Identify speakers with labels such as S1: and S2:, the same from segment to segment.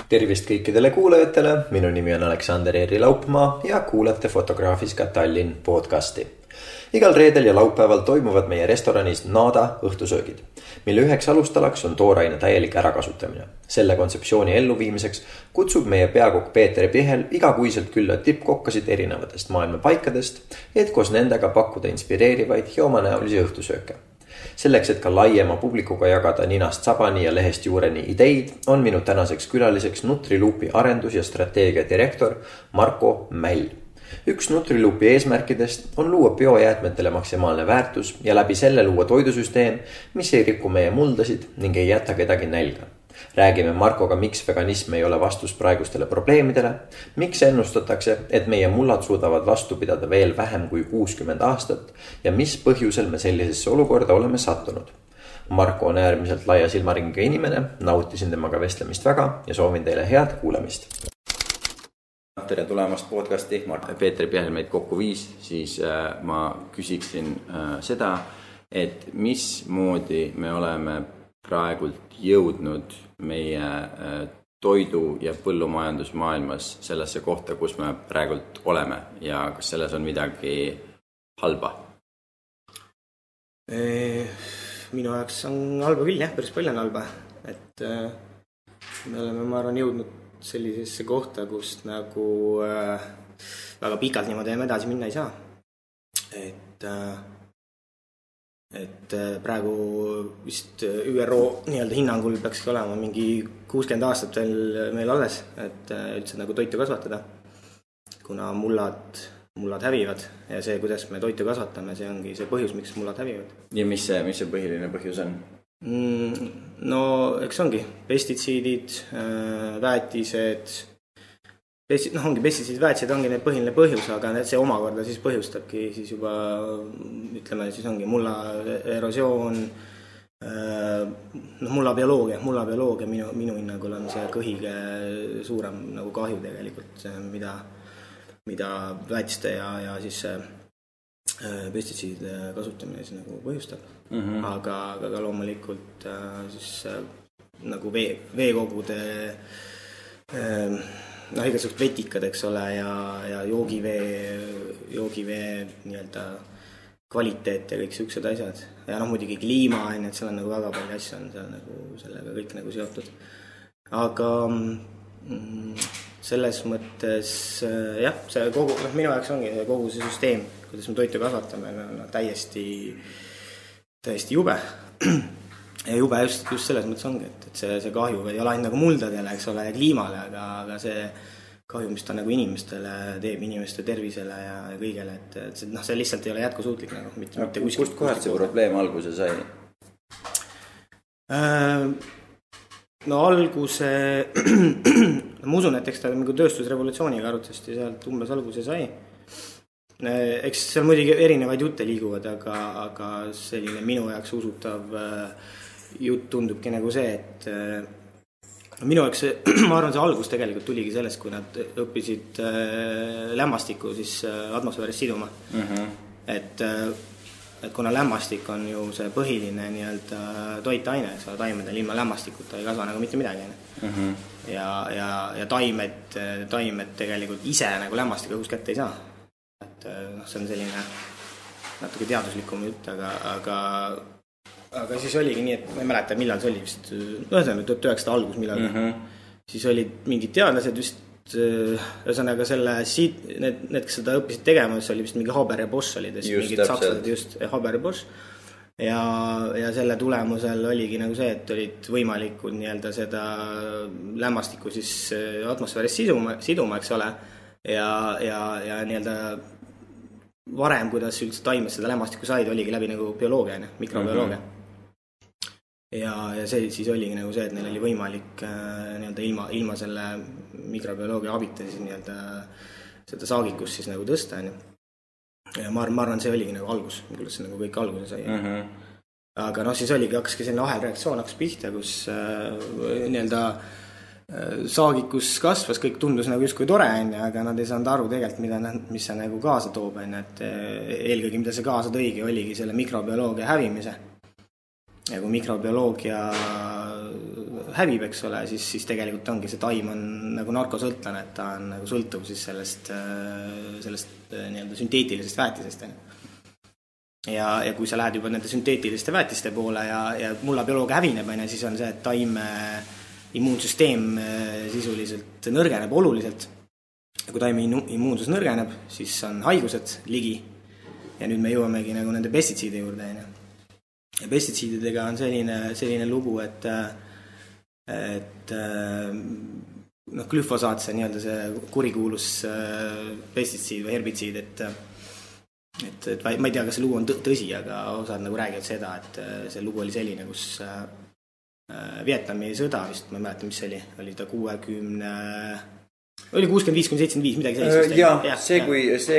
S1: Tervist kõikidele kuulajatele, minu nimi on Aleksander Eeri Laupmaa ja kuulate Fotograafiska Tallinn podcasti. Igal reedel ja laupäeval toimuvad meie restoranis Nada õhtusöögid, mille üheks alustalaks on tooraine täielik ärakasutamine. Selle kontseptsiooni elluviimiseks kutsub meie peakokk Peeter Pihel igakuiselt külla tippkokkasid erinevatest maailma paikadest, et koos nendega pakkuda inspireerivaid ja omanäolisi õhtusööke. Selleks, et ka laiema publikuga jagada ninast sabani ja lehest juureni ideid, on minu tänaseks külaliseks Nutriluupi arendus- ja strateegia direktor Marko Mäll. Üks Nutriluupi eesmärkidest on luua biojäätmetele maksimaalne väärtus ja läbi selle luua toidusüsteem, mis ei riku meie muldasid ning ei jäta kedagi nälga. Räägime Markoga, miks veganism ei ole vastus praegustele probleemidele, miks ennustatakse, et meie mullad suudavad vastu pidada veel vähem kui 60 aastat ja mis põhjusel me sellisesse olukorda oleme sattunud. Marko on äärmiselt laia silmaringiga inimene, nautisin temaga vestlemist väga ja soovin teile head kuulamist. Tere tulemast podcasti, Peeter Pihel meid kokku viis, siis ma küsiksin seda, et mismoodi me oleme praegult jõudnud meie toidu- ja põllumajandusmaailmas sellesse kohta, kus me praegult oleme ja kas selles on midagi halba?
S2: Minu jaoks on halba küll, jah, päris palju on halba. Et me oleme, ma arvan, jõudnud sellisesse kohta, kus nagu väga pikalt niimoodi edasi minna ei saa. Et praegu vist ÜRO nii-öelda hinnangul peakski olema mingi 60 aastat veel meil alles, et üldse nagu toitu kasvatada, kuna mullad hävivad ja see, kuidas me toitu kasvatame, see ongi see põhjus, miks mullad hävivad.
S1: Ja mis see põhiline põhjus on?
S2: No eks ongi pestitsiidid, väetised, ongi pestitsiidid, väetised ongi need põhiline põhjus, aga see omakorda siis põhjustabki siis juba, ütleme, siis ongi mulla erosioon, mulla bioloogia minu hinnangul on see kõige suurem nagu kahju tegelikult, mida väetiste ja siis pestitsiidide kasutamine siis nagu põhjustab. Aga loomulikult siis nagu veekogude igasugused vetikad, eks ole, ja joogivee nii-öelda kvaliteet ja kõik siuksed asjad. Ja muidugi kliima, et seal on nagu väga palju asju on seal nagu sellega kõik nagu seotud. Aga selles mõttes jah, see kogu, minu jaoks ongi kogu see süsteem, kuidas me toitu kasvatame, on täiesti jube. Ja jube just selles mõttes ongi, et see kahju ei ole ainult nagu muldadele, eks ole, ja kliimale, aga see kahju, mis ta nagu inimestele teeb, inimeste tervisele ja kõigele, et see lihtsalt ei ole jätkusuutlik nagu, mitte kuskil.
S1: Kust kohast see probleem alguse sai?
S2: No alguse, ma usun, et eks ta nagu tööstusrevolutsiooniga arutasti sealt umbes alguse sai. Eks seal muidugi erinevaid jutte liiguvad, aga selline minu jaoks usutav jutt tundubki nagu see, et minu jaoks ma arvan, see algus tegelikult tuligi sellest, kui nad õppisid lämmastikku siis atmosfääris siduma. Et kuna lämmastik on ju see põhiline nii-öelda toitaine, eks ole, taimedel ilma lämmastikuta ei kasva nagu mitte midagi. Ja taimed tegelikult ise nagu lämmastikku õhus kätte ei saa. Et see on selline natuke teaduslikum jutt, aga siis oligi nii, et ma ei mäleta, millal see oli vist, 1900 algus millal. Siis olid mingid teadlased vist, ühesõnaga need, kes seda õppisid tegema, see oli vist mingi Haber ja Bosch olid, mingid sakslased just, Haber ja Bosch. Ja selle tulemusel oligi nagu see, et olid võimalikud nii-öelda seda lämmastikku siis atmosfääris siduma, eks ole. Ja nii-öelda varem, kuidas üldse taimed seda lämmastikku said, oligi läbi nagu bioloogia, mikrobioloogia. Ja see siis oligi nagu see, et neil oli võimalik nii-öelda ilma selle mikrobioloogia abita siis nii-öelda seda saagikust siis nagu tõsta. Ja ma arvan, see oligi nagu algus, kuidas see nagu kõik alguse sai. Aga siis hakkaski selline ahelreaktsioon hakkas pihta, kus nii-öelda saagikus kasvas, kõik tundus nagu justkui tore, aga nad ei saanud aru tegelikult, mis see nagu kaasa toob. Et eelkõige, mida see kaasa tõigi, oligi selle mikrobioloogia hävimise. Ja kui mikrobioloogia hävib, eks ole, siis tegelikult ongi see taim on nagu narkosõltlane, et ta on nagu sõltuv siis sellest nii-öelda sünteetilisest väetisest. Ja kui sa lähed juba nende sünteetiliste väetiste poole ja mullabioloog hävineb, siis on see, et taime immuunsüsteem sisuliselt nõrgeneb oluliselt. Ja kui taime immuunsus nõrgeneb, siis on haigused ligi. Ja nüüd me jõuamegi nagu nende pestitsiide juurde. Ja pestitsiididega on selline lugu, et glüfosaat, see nii-öelda see kurikuulus pestitsiid või herbitsiid, et ma ei tea, kas see lugu on tõsi, aga osad nagu räägivad seda, et see lugu oli selline, kus Vietnami sõda vist, ma ei mäleta, mis see oli ta 65-75, midagi sellist.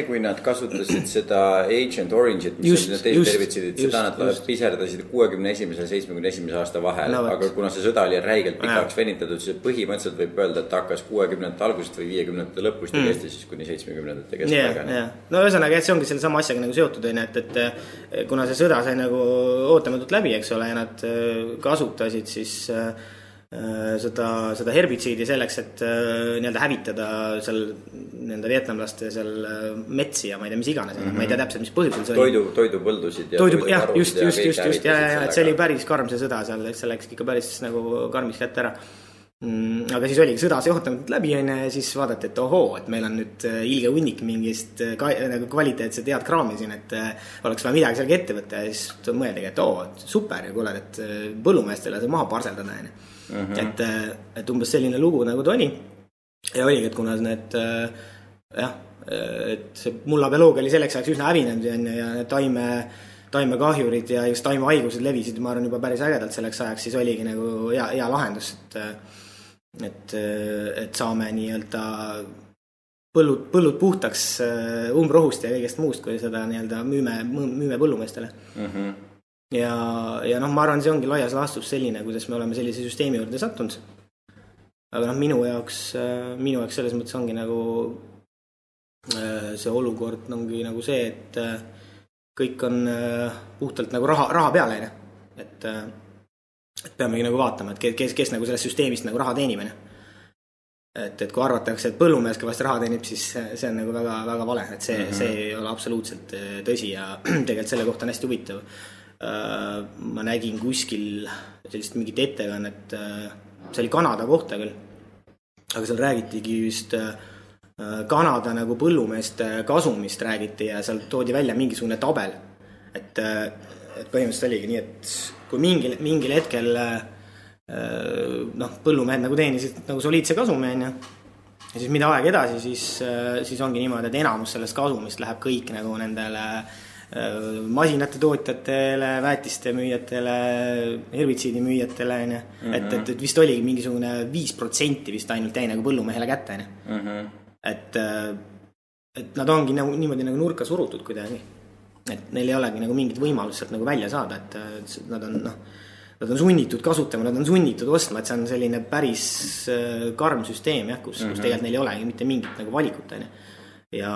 S3: Kui nad kasutasid seda Agent Orange'it, mis on teised tervitsidid, seda nad piserdasid 61-71 aasta vahel, aga kuna see sõda oli räigelt pikaks venitatud, siis põhimõtteliselt võib öelda, et hakkas 60-ndate algusest või 50-ndate lõpust ja kesti siis kuni 70-ndate kestpäega.
S2: No ühesõnaga, et see ongi selle sama asjaga nagu seotud, et kuna see sõda sai nagu ootamatult läbi, eks ole, ja nad kasutasid siis seda herbitsiidi selleks, et nii-öelda hävitada seal nende vietnamlaste seal metsi ja ma ei tea, mis iganes, ma ei tea täpselt, mis põhjusel see
S3: oli. Toidupõldusid ja
S2: just, et see oli päris karm see sõda seal, see läks ikka päris nagu karmis kätte ära. Aga siis oligi sõda see ootamatult läbi ja siis vaadati, et ohoo, et meil on nüüd ilge hunnik mingist nagu kvaliteetset head kraami siin, et oleks vaja midagi sellega ette võtta ja siis mõeldagi, et super ja kuule, et põllumeestele see maha parseldada. Et umbes selline lugu nagu ta oli ja oligi, et kuna need et see mullabioloogia oli selleks ajaks üsna hävinenud ja need taimekahjurid ja just taimehaigused levisid, ma arvan, juba päris ägedalt selleks ajaks, siis oligi nagu hea lahendus, et saame nii-öelda põllud puhtaks umbrohust ja kõigest muust, kui seda nii-öelda müüme põllumeestele. Ja ma arvan, see ongi laias laastus selline, kuidas me oleme sellise süsteemi juurde sattunud. Aga minu jaoks selles mõttes ongi nagu see olukord ongi nagu see, et kõik on puhtalt nagu raha peale. Et peamegi nagu vaatama, et kes nagu sellest süsteemist nagu raha teenib. Et kui arvatakse, et põllumees kõvasti raha teenib, siis see on nagu väga, väga vale. Et see ei ole absoluutselt tõsi ja tegelikult selle kohta on hästi huvitav. Ma nägin kuskil sellist mingit ettekannet, see oli Kanada kohta küll, aga seal räägitigi just Kanada nagu põllumeeste kasumist räägiti ja seal toodi välja mingisugune tabel, et põhimõtteliselt oligi nii, et kui mingil hetkel põllumehed nagu teenisid nagu soliidse kasumi ja siis mida aeg edasi, siis ongi niimoodi, et enamus sellest kasumist läheb kõik nagu nendele masinate tootjatele, väetiste müüjatele, herbitsiidi müüjatele, et vist oligi mingisugune 5% vist ainult jäi nagu põllumehele kätte. Et nad ongi nagu, niimoodi nagu nurka surutud kuidagi. Et neil ei olegi nagu mingit võimalust sealt nagu välja saada, et nad on sunnitud kasutama, nad on sunnitud ostma, et see on selline päris karm süsteem, kus tegelikult neil ei olegi mitte mingit nagu valikut. Ja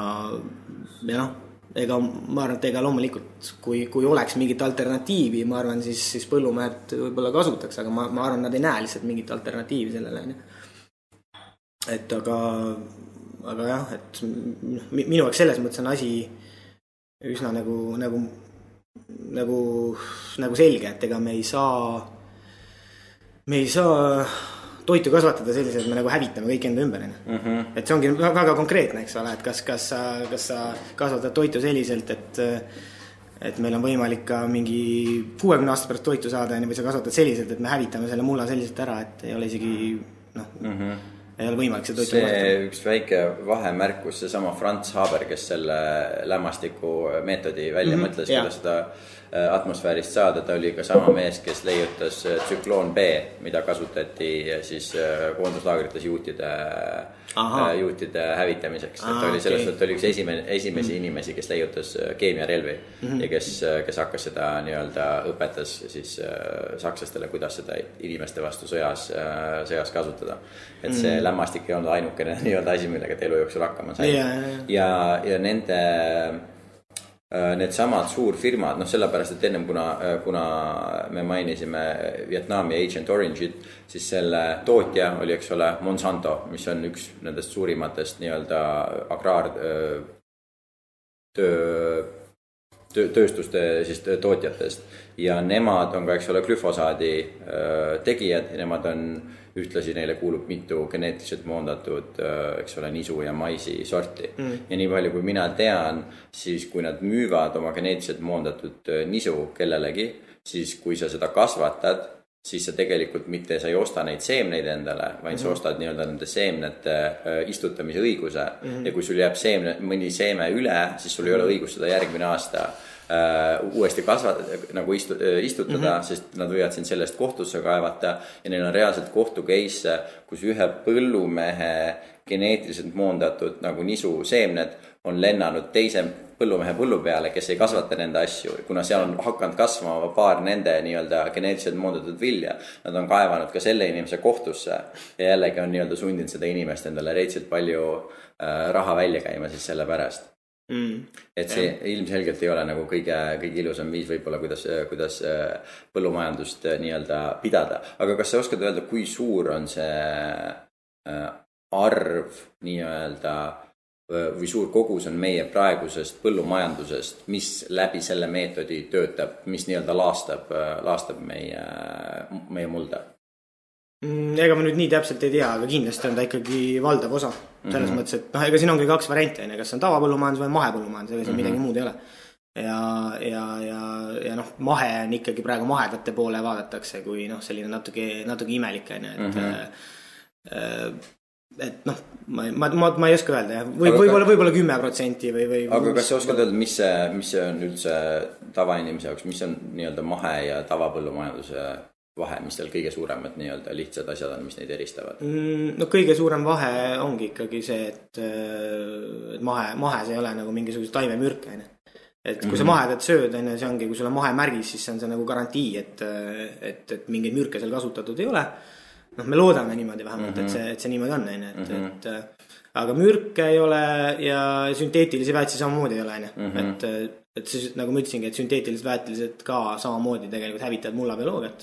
S2: ma arvan, et loomulikult, kui oleks mingit alternatiivi, ma arvan, siis põllumehed võib-olla kasutaks, aga ma arvan, nad ei näe lihtsalt mingit alternatiivi sellele. Et aga jah, et minu jaoks selles mõttes on asi üsna nagu selge, et ega me ei saa toitu kasvatada selliselt, et me nagu hävitame kõik enda ümber. Et see ongi väga konkreetne, eks ole, et kas sa kasvatad toitu selliselt, et meil on võimalik ka mingi 60 aasta pärast toitu saada, või sa kasvatad selliselt, et me hävitame selle mulla selliselt ära, et ei ole isegi ei ole võimalik see toitu kasvatada.
S3: Üks väike vahemärkus, see sama Franz Haber, kes selle lämmastiku meetodi välja mõtles, kuidas seda atmosfäärist saada, ta oli ka sama mees, kes leiutas tsükloon B, mida kasutati siis koonduslaagrites juutide hävitamiseks. Et oli selles, et oli üks esimesi inimesi, kes leiutas keemiarelvi ja kes hakkas seda nii-öelda õpetas siis sakslastele, kuidas seda inimeste vastu sõjas kasutada. Et see lämmastik ei olnud ainukene nii-öelda asi, millega elu jooksul hakkama sai. Ja nende need samad suurfirmad, sellepärast, et ennem kuna me mainisime Vietnami Agent Orange'it, siis selle tootja oli, eks ole, Monsanto, mis on üks nendest suurimatest nii-öelda tööstuste siis tootjatest ja nemad on ka, eks ole, glüfosaadi tegijad ja nemad on ühtlasi neile kuulub mitu geneetiliselt moondatud, eks ole, nisu ja maisi sorti. Ja nii palju, kui mina tean, siis kui nad müüvad oma geneetiliselt moondatud nisu kellelegi, siis kui sa seda kasvatad, siis sa tegelikult mitte sa ei osta neid seemneid endale, vaid sa ostad nii-öelda nende seemnete istutamise õiguse. Ja kui sul jääb mõni seeme üle, siis sul ei ole õigus seda järgmine aasta uuesti istutada, sest nad võivad siin sellest kohtusse kaevata ja neil on reaalselt kohtukeisse, kus ühe põllumehe geneetiliselt moondatud nagu nisu seemned on lennanud teise põllumehe põllu peale, kes ei kasvata nende asju, kuna seal on hakanud kasvama paar nende nii-öelda geneetiliselt moondatud vilja. Nad on kaevanud ka selle inimese kohtusse ja jällegi on nii-öelda sundinud seda inimest endale reitselt palju raha välja käima siis selle pärast. Et see ilmselgelt ei ole nagu kõige ilusam viis võib-olla, kuidas põllumajandust nii-öelda pidada. Aga kas sa oskad öelda, kui suur on see arv nii-öelda või suur kogus on meie praegusest põllumajandusest, mis läbi selle meetodi töötab, mis nii-öelda laastab meie mulda?
S2: Ega ma nüüd nii täpselt ei tea, aga kindlasti on ta ikkagi valdav osa. Selles mõttes, et ega siin ongi 2 varianti, kas on tavapõllumajandus või mahepõllumajandus, ega siin midagi muud ei ole. Ja mahe on ikkagi praegu mahedate poole vaadatakse, kui selline natuke imelik. Et ma ei oska öelda, võib-olla 10% või...
S3: Aga kas sa oskad öelda, mis see on üldse tavainimese jaoks, mis on nii-öelda mahe ja tavapõllumajanduse vahe, mis seal kõige suuremad nii-öelda lihtsad asjad on, mis neid eristavad?
S2: Kõige suurem vahe ongi ikkagi see, et mahes ei ole nagu mingisuguse taimemürk. Et kui sa mahedat sööd, see ongi, kui sul on mahemärgis, siis see on nagu garantii, et mingeid mürke seal kasutatud ei ole. Me loodame niimoodi vähemalt, et see niimoodi on. Aga mürke ei ole ja sünteetilisi väetisi samamoodi ei ole. Et siis, nagu ma ütlesingi, et sünteetilised väetilised ka samamoodi tegelikult hävitavad mullabioloogiat.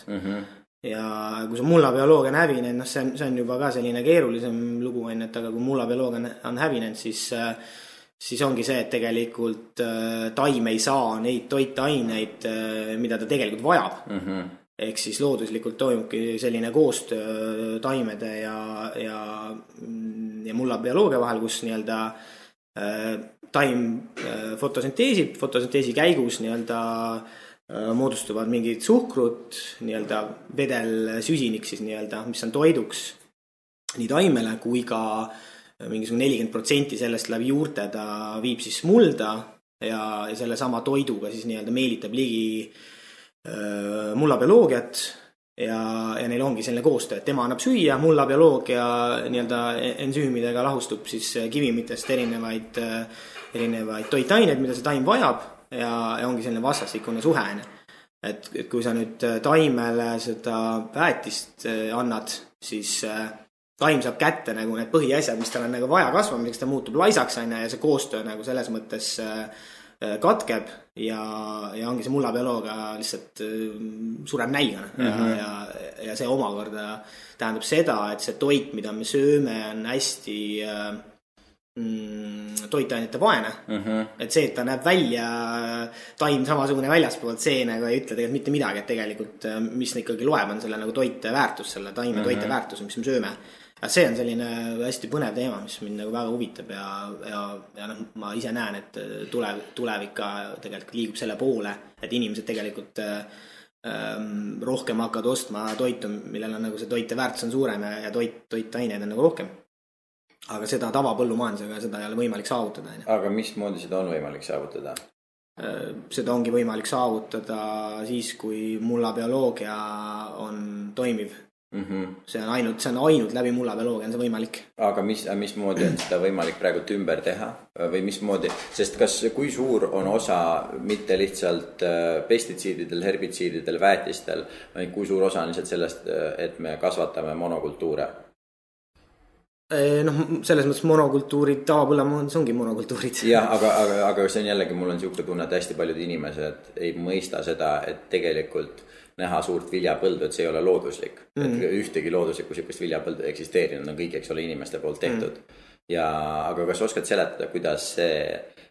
S2: Ja kui see mullabioloogia on hävinenud, see on juba ka selline keerulisem lugu, aga kui mullabioloogia on hävinenud, siis ongi see, et tegelikult taim ei saa neid toitaineid, mida ta tegelikult vajab. Ehk siis looduslikult toimubki selline koostöö taimede ja mullabioloogia vahel, kus nii-öelda taim fotosünteesi käigus nii-öelda moodustuvad mingid suhkrut, nii-öelda vedelsüsinik siis nii-öelda, mis on toiduks nii taimele kui ka mingisugune 40% sellest läbi juurte ta viib siis mulda ja selle sama toiduga siis nii-öelda meelitab ligi mullabioloogiat ja neil ongi selline koostöö, et tema annab süüa, mullabioloogia nii-öelda ensüümidega lahustub siis kivimitest erinevaid toitaineid, mida see taim vajab ja ongi selline vastastikune suhe. Et kui sa nüüd taimele seda väetist annad, siis taim saab kätte nagu need põhiasjad, mis tal on nagu vaja kasvamiseks, ta muutub laisaks ja see koostöö nagu selles mõttes katkeb ja ongi see mullabioloogia lihtsalt sureb nälgana ja see omakorda tähendab seda, et see toit, mida me sööme, on hästi toitainete vaene. Et see, et ta näeb välja taim samasugune väljaspoolt, see nagu ei ütle tegelikult mitte midagi, et tegelikult mis ikkagi loeb on selle nagu toiteväärtus, selle taime toiteväärtus, mis me sööme. See on selline hästi põnev teema, mis mind nagu väga huvitab ja ma ise näen, et tulevik ka tegelikult liigub selle poole, et inimesed tegelikult rohkem hakkavad ostma toitu, millel on nagu see toiteväärtus on suurem ja toitaineid on nagu rohkem. Aga seda tavapõllumajandusega seda ei ole võimalik saavutada.
S3: Aga mismoodi seda on võimalik saavutada?
S2: Seda ongi võimalik saavutada siis, kui mullabioloogia on toimiv. See on ainult läbi mullabioloogia on see võimalik.
S3: Aga mismoodi on seda võimalik praegu ümber teha või mismoodi, sest kui suur on osa mitte lihtsalt pestitsiididel, herbitsiididel, väetistel, vaid kui suur osa on lihtsalt sellest, et me kasvatame monokultuure?
S2: Noh, selles mõttes monokultuurid, tavapõllumajandus ongi monokultuurid.
S3: Jah, aga see on jällegi, mul on niisugune tunne, et hästi paljud inimesed ei mõista seda, et tegelikult näha suurt viljapõldu, et see ei ole looduslik. Et ühtegi looduslikku sellist viljapõldu eksisteerinud, on kõik, eks ole, inimeste poolt tehtud. Aga kas oskad seletada, kuidas see,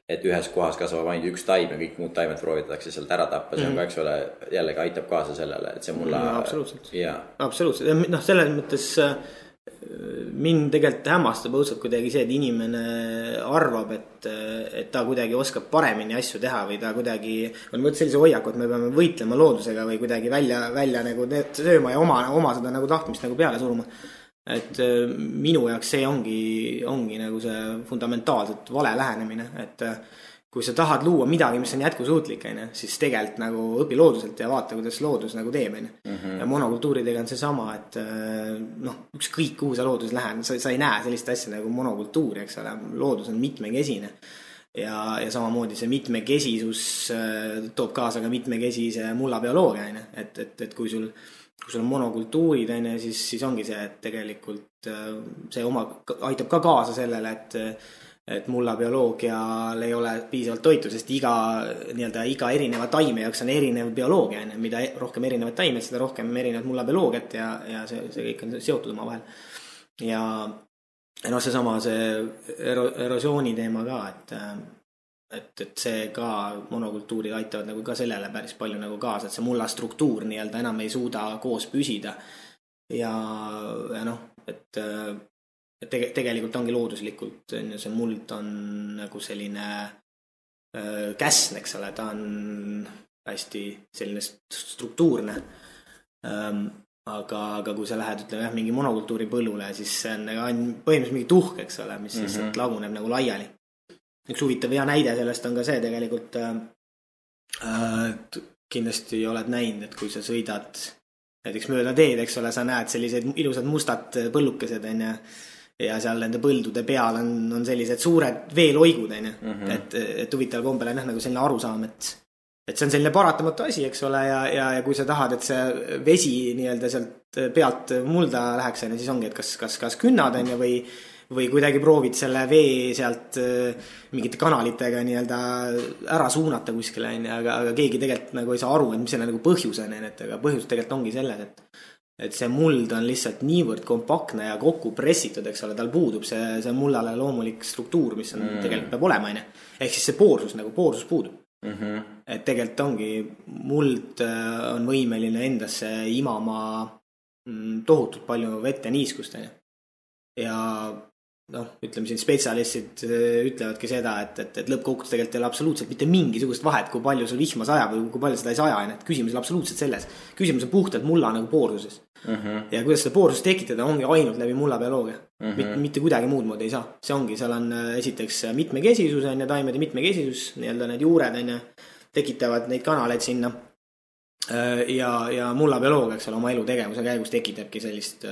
S3: et ühes kohas kasvab ainult üks taim ja kõik muud taimed proovitatakse sealt ära tappa, see on ka, eks ole, jällegi aitab kaasa sellele, et see mulla...
S2: Absoluutselt. Absoluutselt. Noh, selles mõttes mind tegelikult hämmastab õudselt kuidagi see, et inimene arvab, et ta kuidagi oskab paremini asju teha või ta kuidagi on mõttes sellise hoiaku, et me peame võitlema loodusega või kuidagi välja nagu sööma ja oma seda nagu tahtmist nagu peale suruma. Et minu jaoks see ongi nagu see fundamentaalselt vale lähenemine, et kui sa tahad luua midagi, mis on jätkusuutlik, siis tegelikult nagu õpi looduselt ja vaata, kuidas loodus nagu teeb. Ja monokultuuridega on see sama, et ükskõik kuhu sa loodus lähen, sa ei näe sellist asja nagu monokultuuri, eks ole, loodus on mitmekesine. Ja samamoodi see mitmekesisus toob kaasa ka mitmekesise mullabioloogia, et kui sul on monokultuurid, siis ongi see, et tegelikult see aitab ka kaasa sellele, et mullabioloogial ei ole piisavalt toitu, sest iga erineva taime jaoks on erinev bioloogia, mida rohkem erinevad taimed, seda rohkem erinevad mullabioloogiat ja see kõik on seotud oma vahel. Ja seesama see erosiooni teema ka, et see ka monokultuurid aitavad nagu ka sellele päris palju nagu kaasa, et see mulla struktuur enam ei suuda koos püsida ja et tegelikult ongi looduslikult, see muld on nagu selline käsn, eks ole, ta on hästi selline struktuurne, aga kui sa lähed, ütleme mingi monokultuuri põllule, siis see on põhimõtteliselt mingi tuhk, eks ole, mis lihtsalt laguneb nagu laiali. Üks huvitav hea näide sellest on ka see tegelikult, kindlasti oled näinud, et kui sa sõidad näiteks mööda teed, eks ole, sa näed sellised ilusad mustad põllukesed, ja seal nende põldude peal on sellised suured veeloigud, et huvitaval kombel on nagu selline arusaam, et see on selline paratamatu asi, eks ole, ja kui sa tahad, et see vesi sealt pealt mulda läheks, siis ongi, et kas künnad või kuidagi proovid selle vee sealt mingite kanalitega ära suunata kuskile, aga keegi tegelikult nagu ei saa aru, et mis selle nagu põhjus on, aga põhjus tegelikult ongi selles, et see muld on lihtsalt niivõrd kompaktne ja kokku pressitud, eks ole, tal puudub see mullale loomulik struktuur, mis on tegelikult peab olema, ehk siis see poorsus puudub. Et tegelikult ongi, muld on võimeline endasse imama tohutult palju vett ja niiskust, ja ütleme siin spetsialistid ütlevadki seda, et lõppkokkuvõttes tegelikult ei ole absoluutselt mitte mingisugust vahet, kui palju sul vihma sajab või kui palju seda ei saja, et küsimus on absoluutselt selles. Küsimus on puhtalt mulla nagu poorsuses. Ja kuidas seda poorsust tekitada ongi ainult läbi mullabioloogia. Mitte kuidagi muud moodi ei saa. See ongi, seal on esiteks mitmekesisus, taimede mitmekesisus, need juured tekitavad neid kanaleid sinna. Ja mullabioloogia, eks ole, oma elutegevuse käigus tekitabki sellist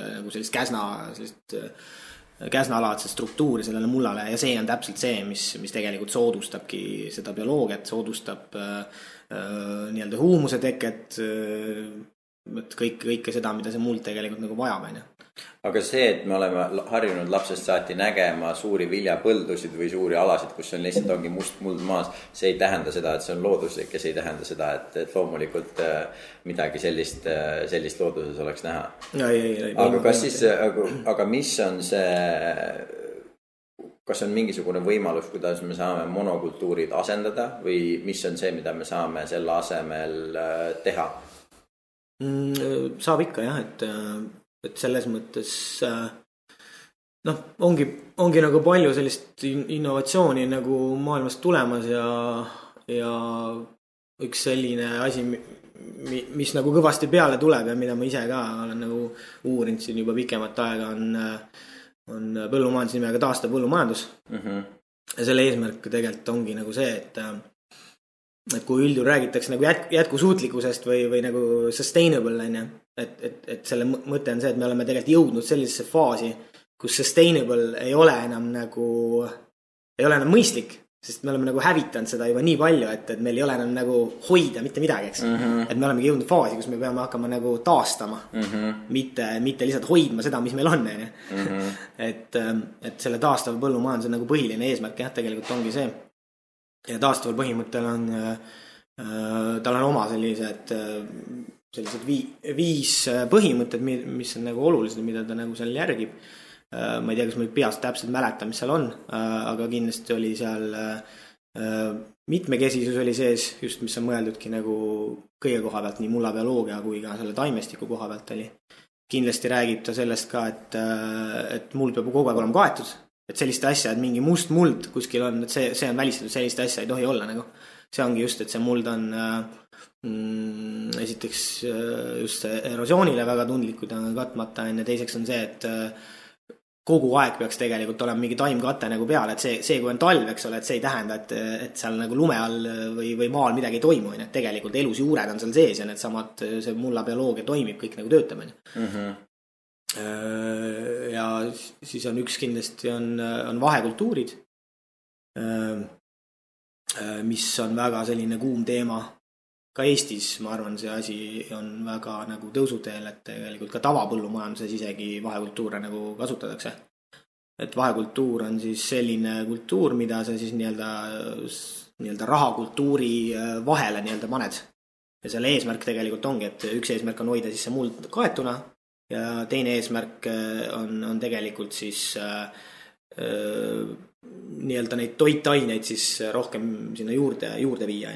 S2: käsnalaadset struktuuri sellele mullale ja see on täpselt see, mis tegelikult soodustabki seda bioloogiat, soodustab huumuse teket, kõike seda, mida see muld tegelikult nagu vajab.
S3: Aga see, et me oleme harjunud lapsest saati nägema suuri viljapõldusid või suuri alasid, kus on lihtsalt ongi must muld maas, see ei tähenda seda, et see on looduslik ja see ei tähenda seda, et loomulikult midagi sellist looduses oleks näha. Aga kas siis, aga mis on see, kas on mingisugune võimalus, kuidas me saame monokultuurid asendada või mis on see, mida me saame selle asemel teha?
S2: Saab ikka jah, et selles mõttes ongi nagu palju sellist innovatsiooni nagu maailmast tulemas ja üks selline asi, mis nagu kõvasti peale tuleb ja mida ma ise ka olen nagu uurinud siin juba pikemat aega on põllumajandus nimega Taastav põllumajandus. Ja selle eesmärk tegelikult ongi nagu see, et kui üldjuhul räägitakse nagu jätkusuutlikkusest või nagu sustainable, et selle mõte on see, et me oleme tegelikult jõudnud sellisesse faasi, kus sustainable ei ole enam mõistlik, sest me oleme nagu hävitanud seda juba nii palju, et meil ei ole enam nagu hoida mitte midagi, eks. Et me olemegi jõudnud faasi, kus me peame hakkama nagu taastama, mitte lihtsalt hoidma seda, mis meil on. et selle taastav põllumajanduse nagu põhiline eesmärk jah, tegelikult ongi see. Ja taastaval põhimõttel on, tal on oma sellised 5 põhimõtted, mis on nagu olulised, mida ta nagu seal järgib. Ma ei tea, kas ma peast täpselt mäletan, mis seal on, aga kindlasti oli seal mitmekesisus oli sees, just mis on mõeldudki nagu kõige koha pealt, nii mullabioloogia kui ka selle taimestiku koha pealt oli. Kindlasti räägib ta sellest ka, et muld peab kogu aeg olema kaetud, et selliste asja, et mingi must muld kuskil on, et see on välistatud, selliste asja ei tohi olla nagu. See ongi just, et see muld on esiteks just erosioonile väga tundlikud on katmata, ja teiseks on see, et kogu aeg peaks tegelikult olema mingi taimkate nagu peal, et see kui on talv, eks ole, et see ei tähenda, et seal nagu lume all või maal midagi ei toimu, et tegelikult elus juured on seal sees ja need samad, see mullabioloogia toimib, kõik nagu töötab. Ja siis on üks kindlasti on vahekultuurid, mis on väga selline kuum teema. Ka Eestis, ma arvan, see asi on väga nagu tõusuteel, et tegelikult ka tavapõllumajanduses isegi vahekultuure nagu kasutatakse. Et vahekultuur on siis selline kultuur, mida sa siis nii-öelda rahakultuuri vahele nii-öelda paned. Ja selle eesmärk tegelikult ongi, et üks eesmärk on hoida siis see muld kaetuna ja teine eesmärk on tegelikult siis nii-öelda neid toitaineid siis rohkem sinna juurde viia.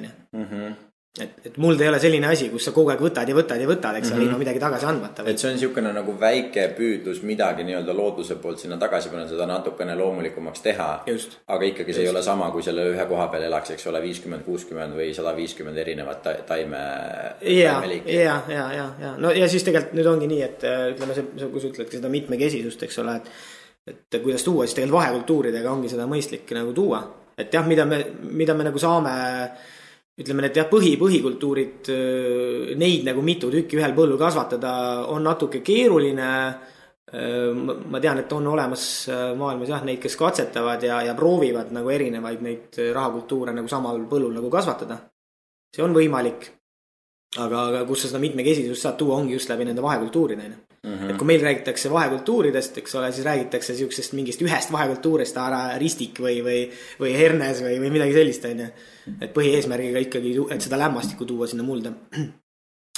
S2: Et muld ei ole selline asi, kus sa kogu aeg võtad, eks ilma midagi tagasi andmata.
S3: Et see on niisugune nagu väike püüdlus midagi nii-öelda looduse poolt sinna tagasi panna, seda natukene loomulikumaks teha.
S2: Just.
S3: Aga ikkagi see ei ole sama, kui selle ühe koha peal elaks, eks ole, 50, 60 või 150 erinevat taimeliiki.
S2: Ja. No ja siis tegelikult nüüd ongi nii, et ütleme, kui sa ütledki seda mitmekesisust, eks ole, et kuidas tuua, siis tegelikult vahekultuuridega ongi seda mõistlik nagu tuua. Et jah, mida me nagu saame... Ütleme, et jah, põhikultuurid, neid nagu mitu tükki ühel põllul kasvatada on natuke keeruline. Ma tean, et on olemas maailmas jah, neid, kes katsetavad ja proovivad nagu erinevaid neid rahakultuure nagu samal põllul nagu kasvatada. See on võimalik. Aga kus sa seda mitmekesisust saad tuua, ongi just läbi nende vahekultuuride. Et kui meil räägitakse vahekultuuridest, eks ole, siis räägitakse siuksest mingist ühest vahekultuurist, ristik või hernes või midagi sellist. Et põhieesmärgiga ikkagi, et seda lämmastikku tuua sinna mulda.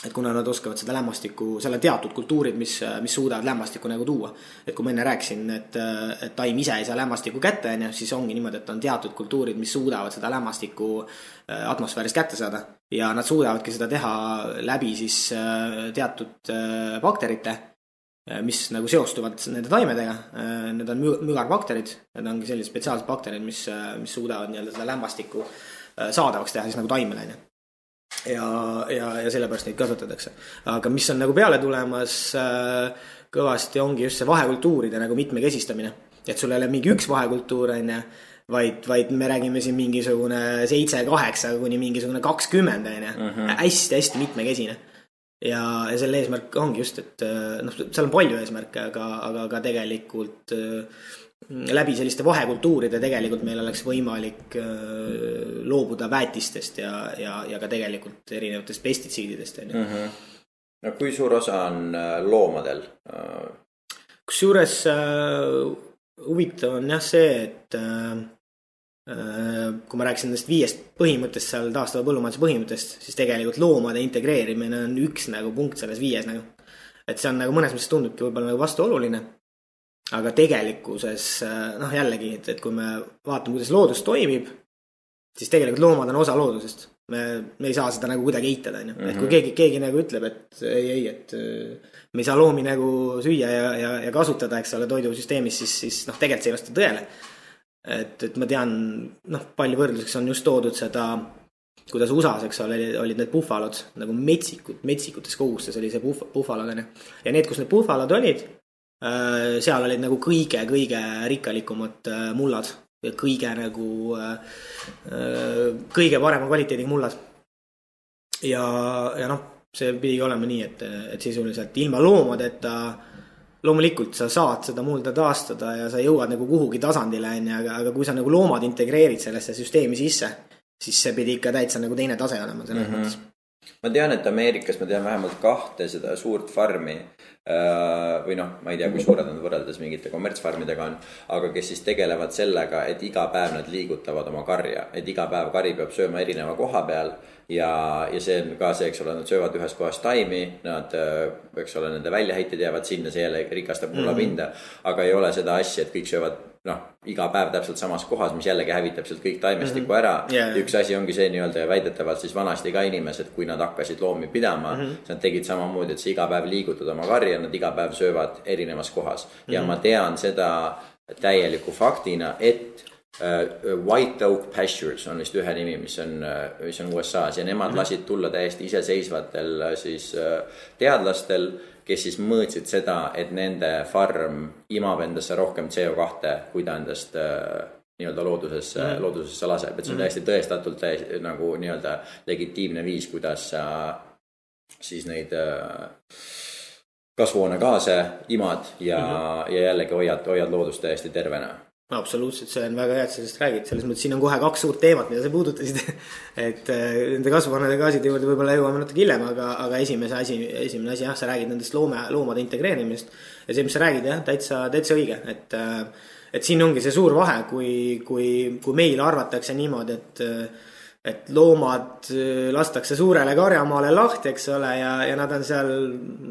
S2: Et kuna nad oskavad seda lämmastikku, seal on teatud kultuurid, mis suudavad lämmastikku nagu tuua. Et kui ma enne rääkisin, et taim ise ei saa lämmastikku kätte, siis ongi niimoodi, et on teatud kultuurid, mis suudavad seda lämmastikku atmosfäärist kätte saada. Ja nad suudavadki seda teha läbi siis teatud bakterite, mis nagu seostuvad nende taimedega. Need on mügarbakterid, need ongi sellised spetsiaalsed bakterid, mis suudavad nii-öelda seda lämmastikku saadavaks teha siis nagu taimele. Ja sellepärast neid kasvatatakse. Aga mis on nagu peale tulemas kõvasti ongi just see vahekultuuride nagu mitmekesistamine. Et sul ei ole mingi üks vahekultuur, vaid me räägime siin mingisugune 7-8 kuni mingisugune 20. Hästi mitmekesine. Ja selle eesmärk ongi just, et seal on palju eesmärke, aga tegelikult läbi selliste vahekultuuride tegelikult meil oleks võimalik loobuda väetistest ja ka tegelikult erinevatest pestitsiididest.
S3: No kui suur osa on loomadel?
S2: Kusjuures huvitav on jah see, et kui ma rääkisin nendest 5 põhimõttest seal taastava põllumajanduse põhimõttest, siis tegelikult loomade integreerimine on üks nagu punkt selles 5 nagu. Et see on nagu mõnes mõttes tundubki võib-olla nagu vastuoluline. Aga tegelikkuses, jällegi, et kui me vaatame, kuidas loodus toimib, siis tegelikult loomad on osa loodusest. Me ei saa seda nagu kuidagi eitada. Et kui keegi nagu ütleb, et ei, et me ei saa loomi nagu süüa ja kasutada, eks ole, toidusüsteemis, siis tegelikult see ei vasta tõele. Et ma tean, palju võrdluseks on just toodud seda, kuidas USAs, eks ole, olid need puhvalod nagu metsikutes kogustes oli see puhvalod. Ja need, kus need puhvalod olid, seal olid nagu kõige rikkalikumad mullad ja kõige parema kvaliteediga mullad. Ja see pidi olema nii, et sisuliselt ilma loomadeta loomulikult sa saad seda mulda taastada ja sa jõuad nagu kuhugi tasandile, aga kui sa nagu loomad integreerid sellesse süsteemi sisse, siis see pidi ikka täitsa nagu teine tase olema selles mõttes.
S3: ma tean, et Ameerikas ma tean vähemalt 2 seda suurt farmi või noh, ma ei tea, kui suured nad võrreldes mingite kommertsfarmidega on, aga kes siis tegelevad sellega, et iga päev nad liigutavad oma karja, et iga päev kari peab sööma erineva koha peal ja see on ka see, eks ole, nad söövad ühes kohas taimi, nad, eks ole, nende väljaheited jäävad sinna, see jälle rikastab mullapinda, aga ei ole seda asja, et kõik söövad iga päev täpselt samas kohas, mis jällegi hävitab sealt kõik taimestiku ära. Üks asi ongi see nii-öelda väidetavalt siis vanasti ka inimesed, kui nad hakkasid loomi pidama, nad tegid samamoodi, et sa iga päev liigutad oma karja, nad iga päev söövad erinevas kohas. Ja ma tean seda täieliku faktina, et White Oak Pastures on vist ühe nimi, mis on USA-s ja nemad lasid tulla täiesti iseseisvatel siis teadlastel, kes siis mõõtsid seda, et nende farm imab endasse rohkem CO2, kui ta endast nii-öelda loodusesse laseb. Et see on täiesti tõestatult nagu nii-öelda legitiimne viis, kuidas sa siis neid kasvuhoonegaase imad ja jällegi hoiad loodust täiesti tervena.
S2: Absoluutselt, see on väga hea, et sellest räägid. Selles mõttes siin on kohe 2 suurt teemat, mida sa puudutasid. Et nende kasvuhoonegaaside juurde võib-olla jõuame natuke hiljem, aga esimene asi, jah, sa räägid nendest loomade integreerimist. Ja see, mis sa räägid, jah, täitsa õige. Et siin ongi see suur vahe, kui meil arvatakse niimoodi, et loomad lastakse suurele karjamaale lahti, eks ole, ja nad on seal,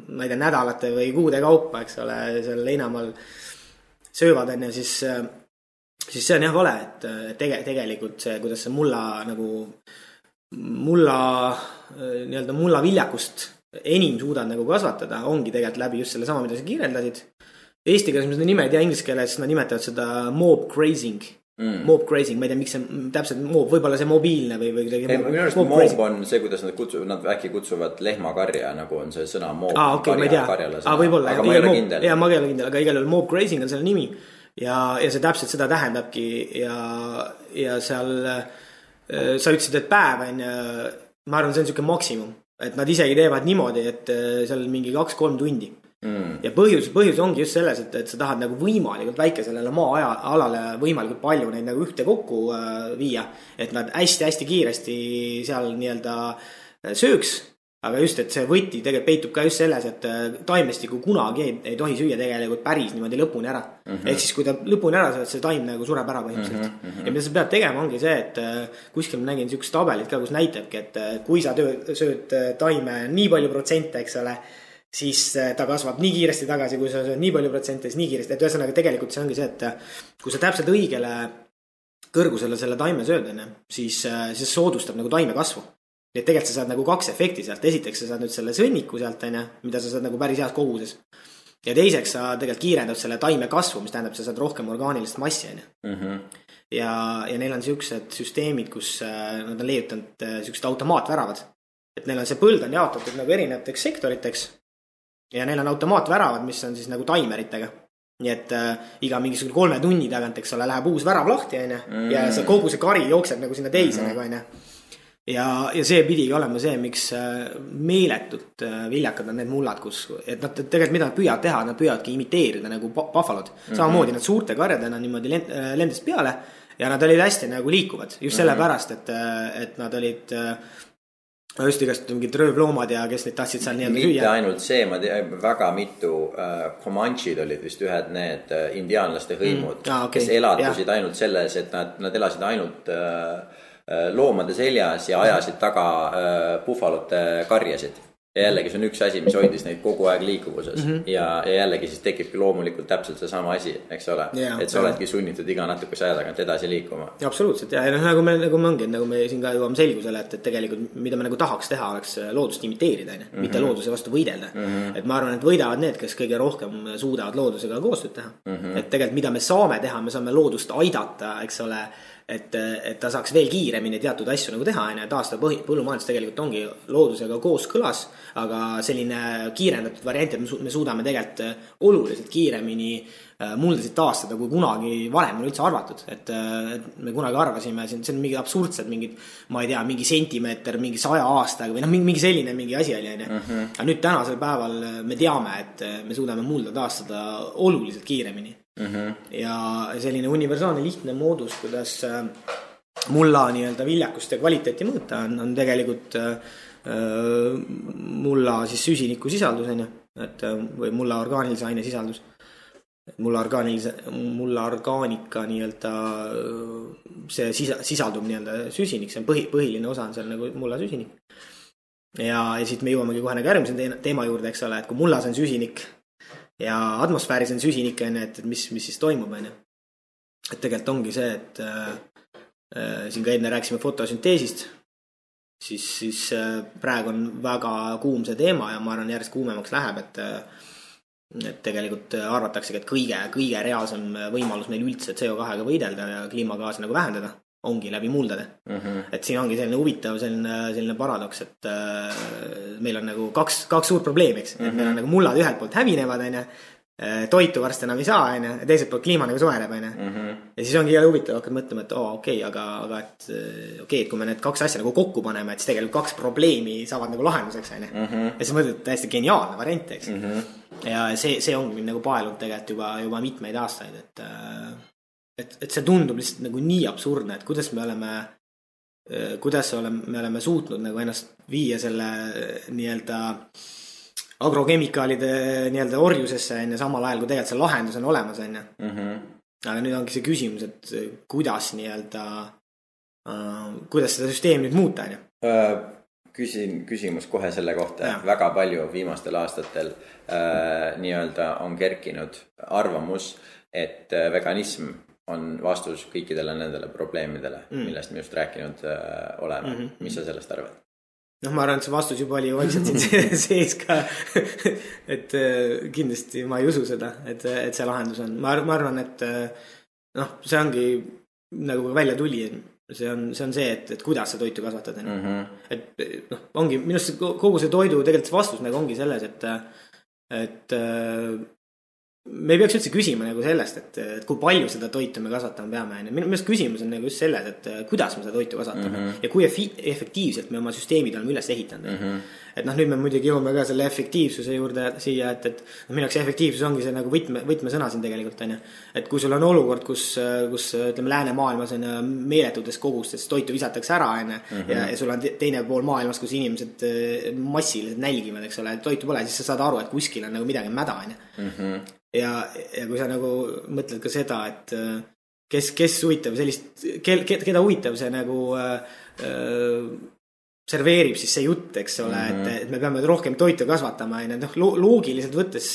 S2: ma ei tea, nädalate või kuude kaupa, eks ole, seal leinamaal söövad, siis see on jah vale, et tegelikult see, kuidas see mulla viljakust enim suudad nagu kasvatada, ongi tegelikult läbi just selle sama, mida sa kirjeldasid. Eesti keeles ma seda nime ei tea, inglise keeles nad nimetavad seda mob grazing. Mob grazing, ma ei tea, miks see täpselt mob, võib-olla see mobiilne või
S3: minu arust mob on see, kuidas nad äkki kutsuvad lehmakarja, nagu on see sõna mob.
S2: Karjale. Võib-olla, aga ma ei ole kindel. Ma ei ole kindel, aga igal juhul mob grazing on selle nimi. Ja see täpselt seda tähendabki ja seal sa ütlesid, et päev on, ma arvan, see on selline maksimum, et nad isegi teevad niimoodi, et seal mingi 2-3 tundi. Ja põhjus ongi just selles, et sa tahad nagu võimalikult väikesele maa-alale võimalikult palju neid nagu ühte kokku viia, et nad hästi-hästi kiiresti seal nii-öelda sööks. Aga just, et see võti tegelikult peitub ka just selles, et taimestiku kunagi ei tohi süüa tegelikult päris niimoodi lõpuni ära. Ehk siis, kui ta lõpuni ära saad, see taim nagu sureb ära põhimõtteliselt. Ja mida sa pead tegema ongi see, et kuskil ma nägin niisugust tabelit ka, kus näitabki, et kui sa sööd taime nii palju protsente, eks ole, siis ta kasvab nii kiiresti tagasi, kui sa sööd nii palju protsente, siis nii kiiresti. Et ühesõnaga tegelikult see ongi see, et kui sa täpselt õigele kõrgusele selle taime sööd, siis soodustab nagu taime kasvu. Nii et tegelikult sa saad nagu 2 efekti sealt. Esiteks sa saad nüüd selle sõnniku sealt, mida sa saad nagu päris heas koguses. Ja teiseks sa tegelikult kiirendad selle taime kasvu, mis tähendab, sa saad rohkem orgaanilist massi. Ja neil on sellised süsteemid, kus nad on leiutanud sellised automaatväravad. Et neil on see põld on jaotatud nagu erinevateks sektoriteks ja neil on automaatväravad, mis on siis nagu taimeritega. Nii et iga mingisugune 3 tunni tagant, eks ole, läheb uus värav lahti ja kogu see kari jookseb nagu sinna teise nagu. Ja see pidigi olema see, miks meeletult viljakad on need mullad, et nad tegelikult mida nad püüavad teha, nad püüavadki imiteerida nagu buffalod. Samamoodi nad suurte karjadena niimoodi lendas peale ja nad olid hästi nagu liikuvad. Just sellepärast, et nad olid just igast mingid röövloomad ja kes neid tahtsid seal nii-öelda süüa.
S3: Mitte ainult see, ma tean, väga mitu Comanche'd olid vist ühed need indiaanlaste hõimud, kes elatusid ainult selles, et nad elasid ainult loomade seljas ja ajasid taga buffalote karjasid. Ja jällegi see on üks asi, mis hoidis neid kogu aeg liikuvuses. Ja jällegi siis tekibki loomulikult täpselt see sama asi, eks ole. Et sa oledki sunnitud iga natukese aja tagant edasi liikuma.
S2: Ja absoluutselt, ja nagu me ongi, nagu me siin ka jõuame selgusele, et tegelikult mida me nagu tahaks teha, oleks loodust imiteerida, mitte looduse vastu võidelda. Et ma arvan, et võidavad need, kes kõige rohkem suudavad loodusega koostööd teha. Et tegelikult mida me saame teha, me saame loodust aidata, eks ole, et ta saaks veel kiiremini teatud asju nagu teha, ja taastada põllumajandus tegelikult ongi loodusega koos kõlas, aga selline kiirendatud variant, et me suudame tegelikult oluliselt kiiremini muldasid taastada, kui kunagi varem on üldse arvatud, et me kunagi arvasime, see on mingi absurdsed, mingid, ma ei tea, mingi sentimeeter, mingi 100 aastaga või mingi selline mingi asi oli. Aga nüüd tänasel päeval me teame, et me suudame mulda taastada oluliselt kiiremini. Ja selline universaalne lihtne moodus, kuidas mulla nii-öelda viljakust ja kvaliteeti mõõta on tegelikult mulla siis süsiniku sisaldus, et või mulla orgaanilise aine sisaldus. Mulla orgaanika nii-öelda see sisaldub nii-öelda süsinik, see on põhiline osa on seal nagu mulla süsinik. Ja siit me jõuamegi kohe nagu järgmise teema juurde, eks ole, et kui mullas on süsinik ja atmosfääris on süsinik, et mis siis toimub, et tegelikult ongi see, et siin ka enne rääkisime fotosünteesist, siis praegu on väga kuum see teema ja ma arvan järjest kuumemaks läheb, et tegelikult arvataksegi, et kõige reaalsem võimalus meil üldse CO2-ga võidelda ja kliimagaasi nagu vähendada ongi läbi muldade. Et siin ongi selline huvitav selline paradoks, et meil on nagu kaks suurt probleemi, eks. Et meil on nagu mullad ühelt poolt hävinevad, toitu varsti enam ei saa, ja teiselt poolt kliima nagu soeneb, ja siis ongi huvitav hakkad mõtlema, et aga et kui me need kaks asja nagu kokku paneme, et siis tegelikult kaks probleemi saavad nagu lahenduseks, ja siis mõtled täiesti geniaalne variant, eks. Ja see ongi nagu paelunud tegelikult juba mitmeid aastaid, et see tundub lihtsalt nagu nii absurdne, et kuidas me oleme suutnud nagu ennast viia selle nii-öelda agrokemikaalide nii-öelda orjusesse samal ajal, kui tegelikult see lahendus on olemas, aga nüüd ongi see küsimus, et kuidas nii-öelda kuidas seda süsteemi nüüd muuta,
S3: küsimus kohe selle kohta, et väga palju viimastel aastatel nii-öelda on kerkinud arvamus, et veganism on vastus kõikidele nendele probleemidele, millest me just rääkinud oleme. Mis sa sellest arvad?
S2: Ma arvan, et see vastus juba oli vaikselt siin sees ka, et kindlasti ma ei usu seda, et see lahendus on. Ma arvan, et see ongi nagu välja tuli, see on see, et kuidas sa toitu kasvatad. Et ongi, minust kogu see toidu tegelikult vastus nagu ongi selles, et me ei peaks üldse küsima nagu sellest, et kui palju seda toitu me kasvatama peame. Minu meelest küsimus on nagu just selles, et kuidas me seda toitu kasvatame ja kui efektiivselt me oma süsteemid oleme üles ehitanud. Et nüüd me muidugi jõuame ka selle efektiivsuse juurde siia, et minu jaoks efektiivsus ongi see nagu võtmesõna siin tegelikult. Et kui sul on olukord, kus ütleme läänemaailmas on meeletutes kogustes toitu visatakse ära ja sul on teine pool maailmas, kus inimesed massiliselt nälgivad, eks ole, toitu pole, siis sa saad aru, et kuskil on nagu midagi mäda. Ja kui sa nagu mõtled ka seda, et kes huvitab sellist, keda huvitab see nagu serveerib siis see jutt, eks ole, et me peame rohkem toitu kasvatama, loogiliselt võttes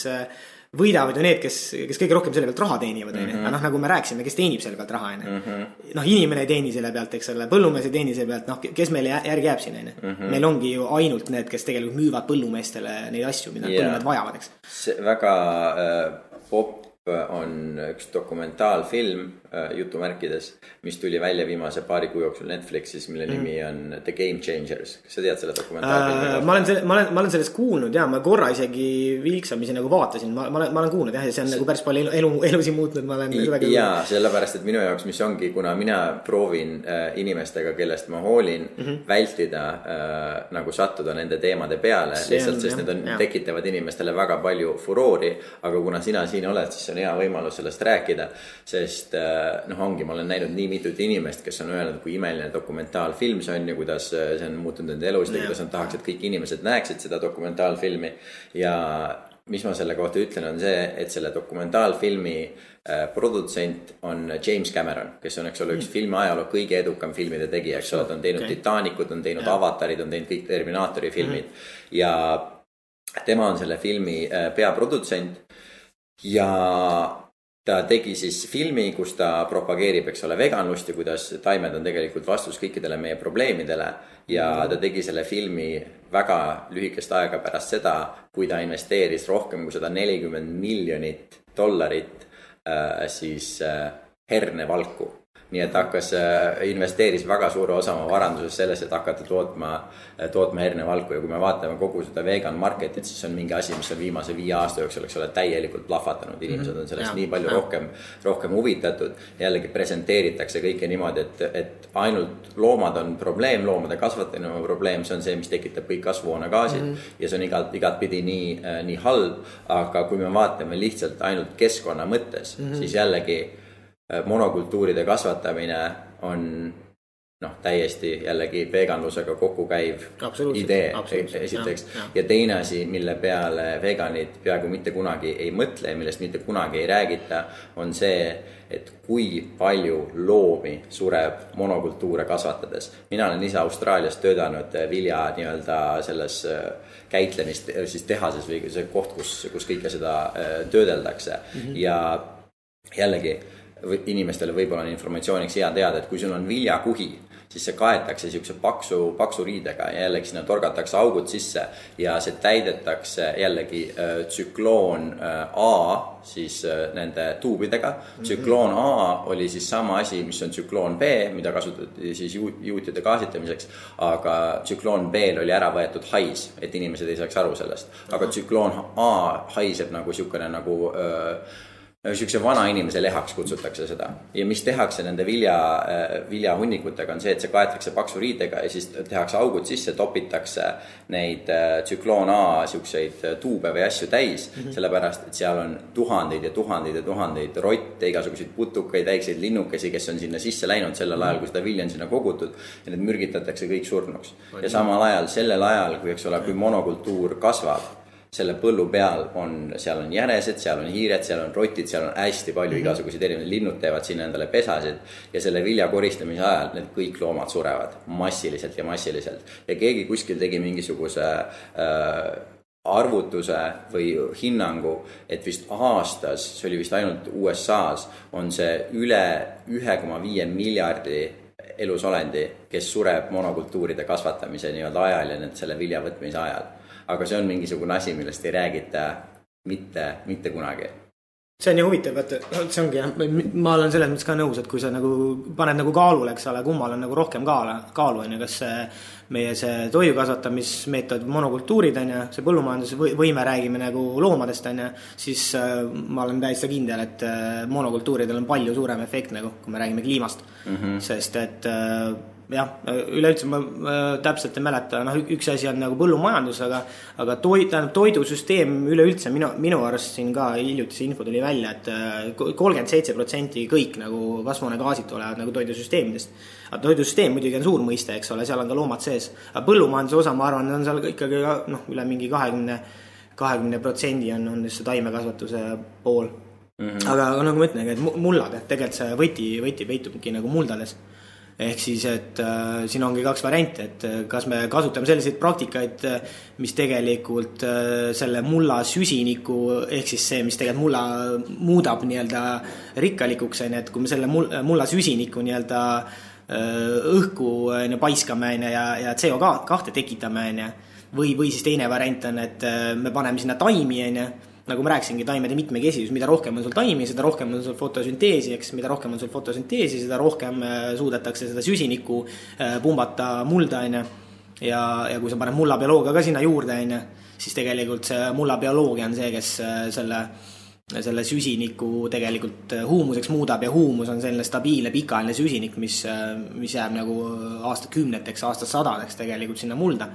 S2: võidavad ju need, kes kõige rohkem selle pealt raha teenivad, aga nagu me rääksime, kes teenib selle pealt raha, inimene ei teeni selle pealt, eks ole, põllumees ei teeni selle pealt, kes meile järgi jääb siin, meil ongi ju ainult need, kes tegelikult müüvad põllumeestele neid asju, mida põllumehed vajavad, eks.
S3: See väga popp on üks dokumentaalfilm jutumärkides, mis tuli välja viimase paari kuu jooksul Netflixis, mille nimi on The Game Changers. Kas sa tead selle dokumentaalfilmi?
S2: Ma olen sellest kuulnud, ma korra isegi vilksamisi nagu vaatasin, ma olen kuulnud, ja see on nagu päris palju elusi muutnud, ma olen väga
S3: jaa, sellepärast, et minu jaoks, mis ongi, kuna mina proovin inimestega, kellest ma hoolin, vältida nagu sattuda nende teemade peale, lihtsalt, sest need tekitavad inimestele väga palju furoori, aga kuna sina siin oled, siis on hea võimalus sellest rääkida, sest ongi, ma olen näinud nii mitut inimest, kes on öelnud, kui imeline dokumentaalfilm see on ja kuidas see on muutunud nende elust ja kuidas on tahaks, et kõik inimesed näeksid seda dokumentaalfilmi ja mis ma selle kohta ütlen on see, et selle dokumentaalfilmi produtsent on James Cameron, kes on, eks ole, üks filmi ajaloo kõige edukam filmide tegija, eks ole, ta on teinud Titanicut, on teinud Avatarid, on teinud kõik Terminaatori filmid ja tema on selle filmi peaprodutsent ja ta tegi siis filmi, kus ta propageerib, eks ole, veganlust ja kuidas taimed on tegelikult vastus kõikidele meie probleemidele ja ta tegi selle filmi väga lühikest aega pärast seda, kui ta investeeris rohkem kui $140 miljonit siis hernevalku. Nii et investeeris väga suure osa oma varanduses selles, et hakata tootma hernevalku ja kui me vaatame kogu seda vegan marketit, siis on mingi asi, mis on viimase 5 aasta jooksul, eks ole, täielikult plahvatanud. Inimesed on sellest nii palju rohkem huvitatud. Jällegi presenteeritakse kõike niimoodi, et ainult loomad on probleem, loomade kasvatamine on probleem, see on see, mis tekitab kõik kasvuhoonegaasid ja see on igat pidi nii halb, aga kui me vaatame lihtsalt ainult keskkonna mõttes, siis jällegi monokultuuride kasvatamine on täiesti jällegi veganlusega kokku käiv idee esiteks. Ja teine asi, mille peale veganid peaaegu mitte kunagi ei mõtle ja millest mitte kunagi ei räägita, on see, et kui palju loomi sureb monokultuure kasvatades. Mina olen ise Austraalias töötanud vilja nii-öelda selles käitlemist siis tehases või see koht, kus kõike seda töödeldakse. Ja jällegi inimestele võib-olla on informatsiooniks hea teada, et kui sul on viljakuhi, siis see kaetakse siukse paksu riidega ja jällegi sinna torgatakse augud sisse ja see täidetakse jällegi tsükloon A siis nende tuubidega. Tsükloon A oli siis sama asi, mis on tsükloon B, mida kasutati siis juutide gaasitamiseks, aga tsükloon B oli ära võetud hais, et inimesed ei saaks aru sellest. Aga tsükloon A haiseb nagu siukene nagu siukse vana inimese lehaks kutsutakse seda. Ja mis tehakse nende viljahunnikutega on see, et see kaetakse paksu riidega ja siis tehakse augud sisse, topitakse neid tsükloon A siukseid tuube või asju täis, sellepärast, et seal on tuhandeid ja tuhandeid ja tuhandeid rotte, igasuguseid putukaid, väikseid linnukesi, kes on sinna sisse läinud sellel ajal, kui seda vilja on sinna kogutud ja need mürgitatakse kõik surnuks. Ja samal ajal, sellel ajal, kui monokultuur kasvab, selle põllu peal seal on jänesed, seal on hiired, seal on rotid, seal on hästi palju igasuguseid erinevaid linnud teevad sinna endale pesasid ja selle vilja koristamise ajal need kõik loomad surevad massiliselt ja massiliselt. Ja keegi kuskil tegi mingisuguse arvutuse või hinnangu, et vist aastas, see oli vist ainult USA's, on see üle 1,5 miljardi elusolendi, kes sureb monokultuuride kasvatamise nii-öelda ajal ja selle vilja võtmise ajal. Aga see on mingisugune asi, millest ei räägita mitte kunagi.
S2: See on ju huvitav, et see ongi, ma olen selles mõttes ka nõus, et kui sa nagu paned nagu kaalule, eks ole, kummal on nagu rohkem kaalu, kas meie see toidu kasvatamismeetod monokultuurid, see põllumajanduse võime räägime nagu loomadest, siis ma olen täiesti kindel, et monokultuuridel on palju suurem efekt, nagu, kui me räägime kliimast. Sest et jah, üleüldse ma täpselt ei mäleta, üks asi on nagu põllumajandus, aga toidusüsteem üleüldse minu arust siin ka hiljutise info tuli välja, et 37% kõik nagu kasvuhoonegaasid tulevad nagu toidusüsteemidest. Aga toidusüsteem muidugi on suur mõiste, eks ole, seal on ka loomad sees. Aga põllumajanduse osa, ma arvan, on seal ikkagi üle mingi 20% on see taimekasvatuse pool. Aga nagu ma ütlen, et mullad, et tegelikult see võti peitubki nagu muldades. Ehk siis, et siin ongi kaks varianti, et kas me kasutame selliseid praktikaid, mis tegelikult selle mulla süsiniku, ehk siis see, mis tegelikult mulla muudab nii-öelda rikkalikuks, et kui me selle mulla süsiniku nii-öelda õhku paiskame ja CO2 tekitame, või siis teine variant on, et me paneme sinna taimi, nagu ma rääkisingi, taimede mitmekesisus, mida rohkem on sul taimi, seda rohkem on sul fotosünteesi, eks, mida rohkem on sul fotosünteesi, seda rohkem suudetakse seda süsinikku pumbata mulda, ja kui sa paned mullabioloogia ka sinna juurde, siis tegelikult see mullabioloogia on see, kes selle süsiniku tegelikult huumuseks muudab ja huumus on selline stabiilne pikaajaline süsinik, mis jääb nagu aastakümneteks, aastasadadeks tegelikult sinna mulda.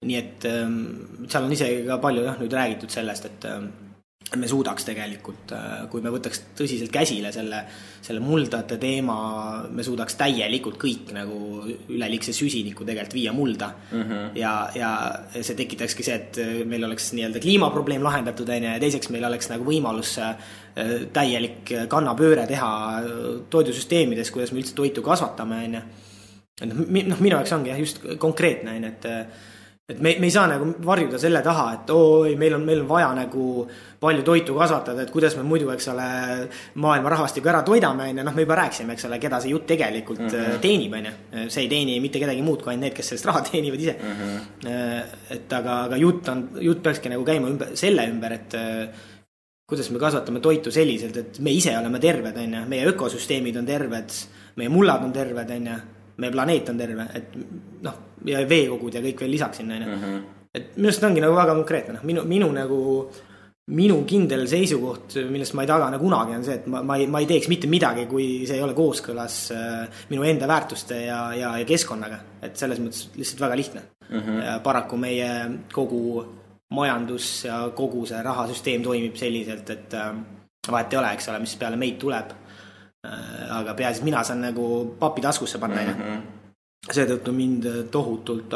S2: Nii et seal on isegi ka palju nüüd räägitud sellest, et me suudaks tegelikult, kui me võtaks tõsiselt käsile selle muldade teema, me suudaks täielikult kõik nagu üleliigse süsiniku tegelikult viia mulda. Ja see tekitakski see, et meil oleks nii-öelda kliimaprobleem lahendatud, ja teiseks meil oleks nagu võimalus täielik kannapööre teha toidusüsteemides, kuidas me üldse toitu kasvatame. Minu jaoks ongi just konkreetne, et me ei saa nagu varjuda selle taha, et meil on vaja nagu palju toitu kasvatada, et kuidas me muidu, eks ole, maailma rahvastiku ära toidame, me juba rääksime, eks ole, keda see jutt tegelikult teenib, see ei teeni mitte kedagi muud kui ainult need, kes sellest raha teenivad ise. Et aga jutt peakski nagu käima selle ümber, et kuidas me kasvatame toitu selliselt, et me ise oleme terved, meie ökosüsteemid on terved, meie mullad on terved, meie planeet on terve, et ja veekogud ja kõik veel lisaks sinna. Et minust ongi nagu väga konkreetne. Minu kindel seisukoht, millest ma ei tagane kunagi, on see, et ma ei teeks mitte midagi, kui see ei ole kooskõlas minu enda väärtuste ja keskkonnaga. Et selles mõttes lihtsalt väga lihtne. Ja paraku meie kogu majandus ja kogu see rahasüsteem toimib selliselt, et vahet ei ole, eks ole, mis peale meid tuleb. Aga peaasi, mina saan nagu papi taskusse panna. seetõttu mind tohutult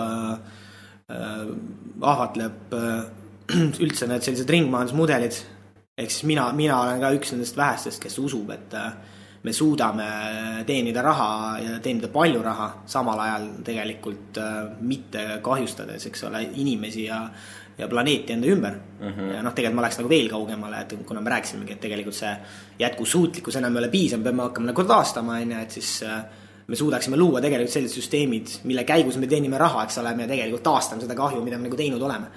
S2: ahvatleb üldse need sellised ringmajandusmudelid. Ehk siis mina olen ka üks nendest vähestest, kes usub, et me suudame teenida raha ja teenida palju raha, samal ajal tegelikult mitte kahjustades, eks ole, inimesi ja planeeti enda ümber. Ja tegelikult ma läheks nagu veel kaugemale, et kuna me rääkisimegi, et tegelikult see jätkusuutlikkus enam ei ole piisav, me peame hakkama nagu taastama, et siis me suudaksime luua tegelikult sellised süsteemid, mille käigus me teenime raha, eks ole, me tegelikult taastame seda kahju, mida me nagu teinud oleme.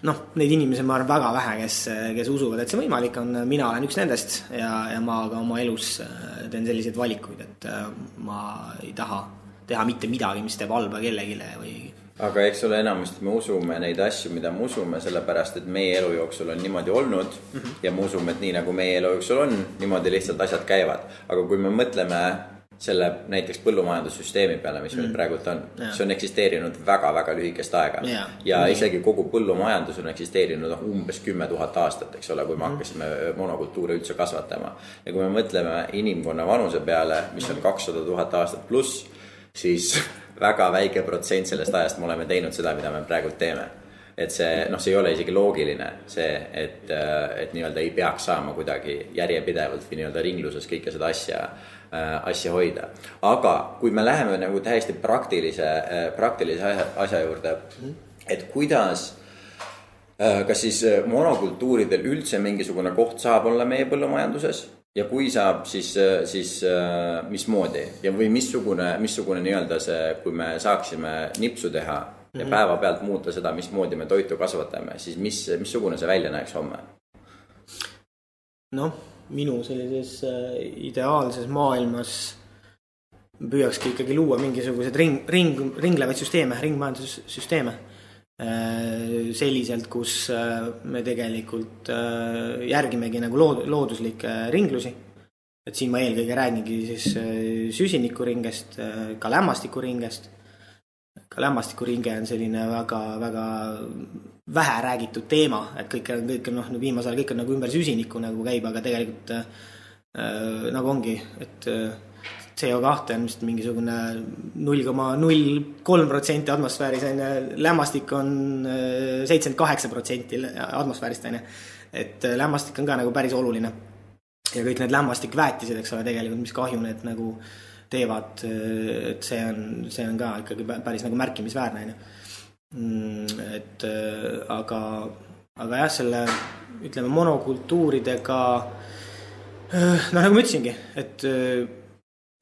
S2: Neid inimesi ma arvan väga vähe, kes usuvad, et see võimalik on. Mina olen üks nendest ja ma ka oma elus teen selliseid valikuid, et ma ei taha teha mitte midagi, mis teeb halba kellegile või...
S3: Aga eks ole enamasti me usume neid asju, mida me usume, sellepärast, et meie elu jooksul on niimoodi olnud ja me usume, et nii nagu meie elu jooksul on, niimoodi lihtsalt asjad käivad. Aga kui me mõtleme selle näiteks põllumajandussüsteemi peale, mis meil praegult on, see on eksisteerinud väga-väga lühikest aega ja isegi kogu põllumajandus on eksisteerinud umbes 10 000 aastat, eks ole, kui me hakkasime monokultuure üldse kasvatama. Ja kui me mõtleme inimkonna vanuse peale, mis on 200 000 aastat pluss, siis väga väike protsent sellest ajast me oleme teinud seda, mida me praegult teeme. Et see ei ole isegi loogiline see, et nii-öelda ei peaks saama kuidagi järjepidevalt või nii-öelda ringluses kõike seda asja hoida. Aga kui me läheme nagu täiesti praktilise asja juurde, et kuidas, kas siis monokultuuridel üldse mingisugune koht saab olla meie põllumajanduses ja kui saab, siis mismoodi ja või missugune nii-öelda see, kui me saaksime nipsu teha ja päeva pealt muuta seda, mismoodi me toitu kasvatame, siis missugune see välja näeks homme?
S2: Minu sellises ideaalses maailmas püüakski ikkagi luua mingisugused ringlevaid süsteeme, ringmajandussüsteeme selliselt, kus me tegelikult järgimegi nagu looduslikke ringlusi. Et siin ma eelkõige räägingi siis süsinikuringest, ka lämmastikuringest. Ka lämmastikuringe on selline väga, väga vähe räägitud teema, et kõik on viimasel kõik on nagu ümber süsiniku nagu käib, aga tegelikult nagu ongi, et CO2 on vist mingisugune 0,03% atmosfääris, lämmastik on 78% atmosfäärist, et lämmastik on ka nagu päris oluline ja kõik need lämmastikväetised, eks ole, tegelikult mis kahju need nagu teevad, et see on ka ikkagi päris nagu märkimisväärne. Et aga jah, selle ütleme monokultuuridega nagu ma ütlesingi, et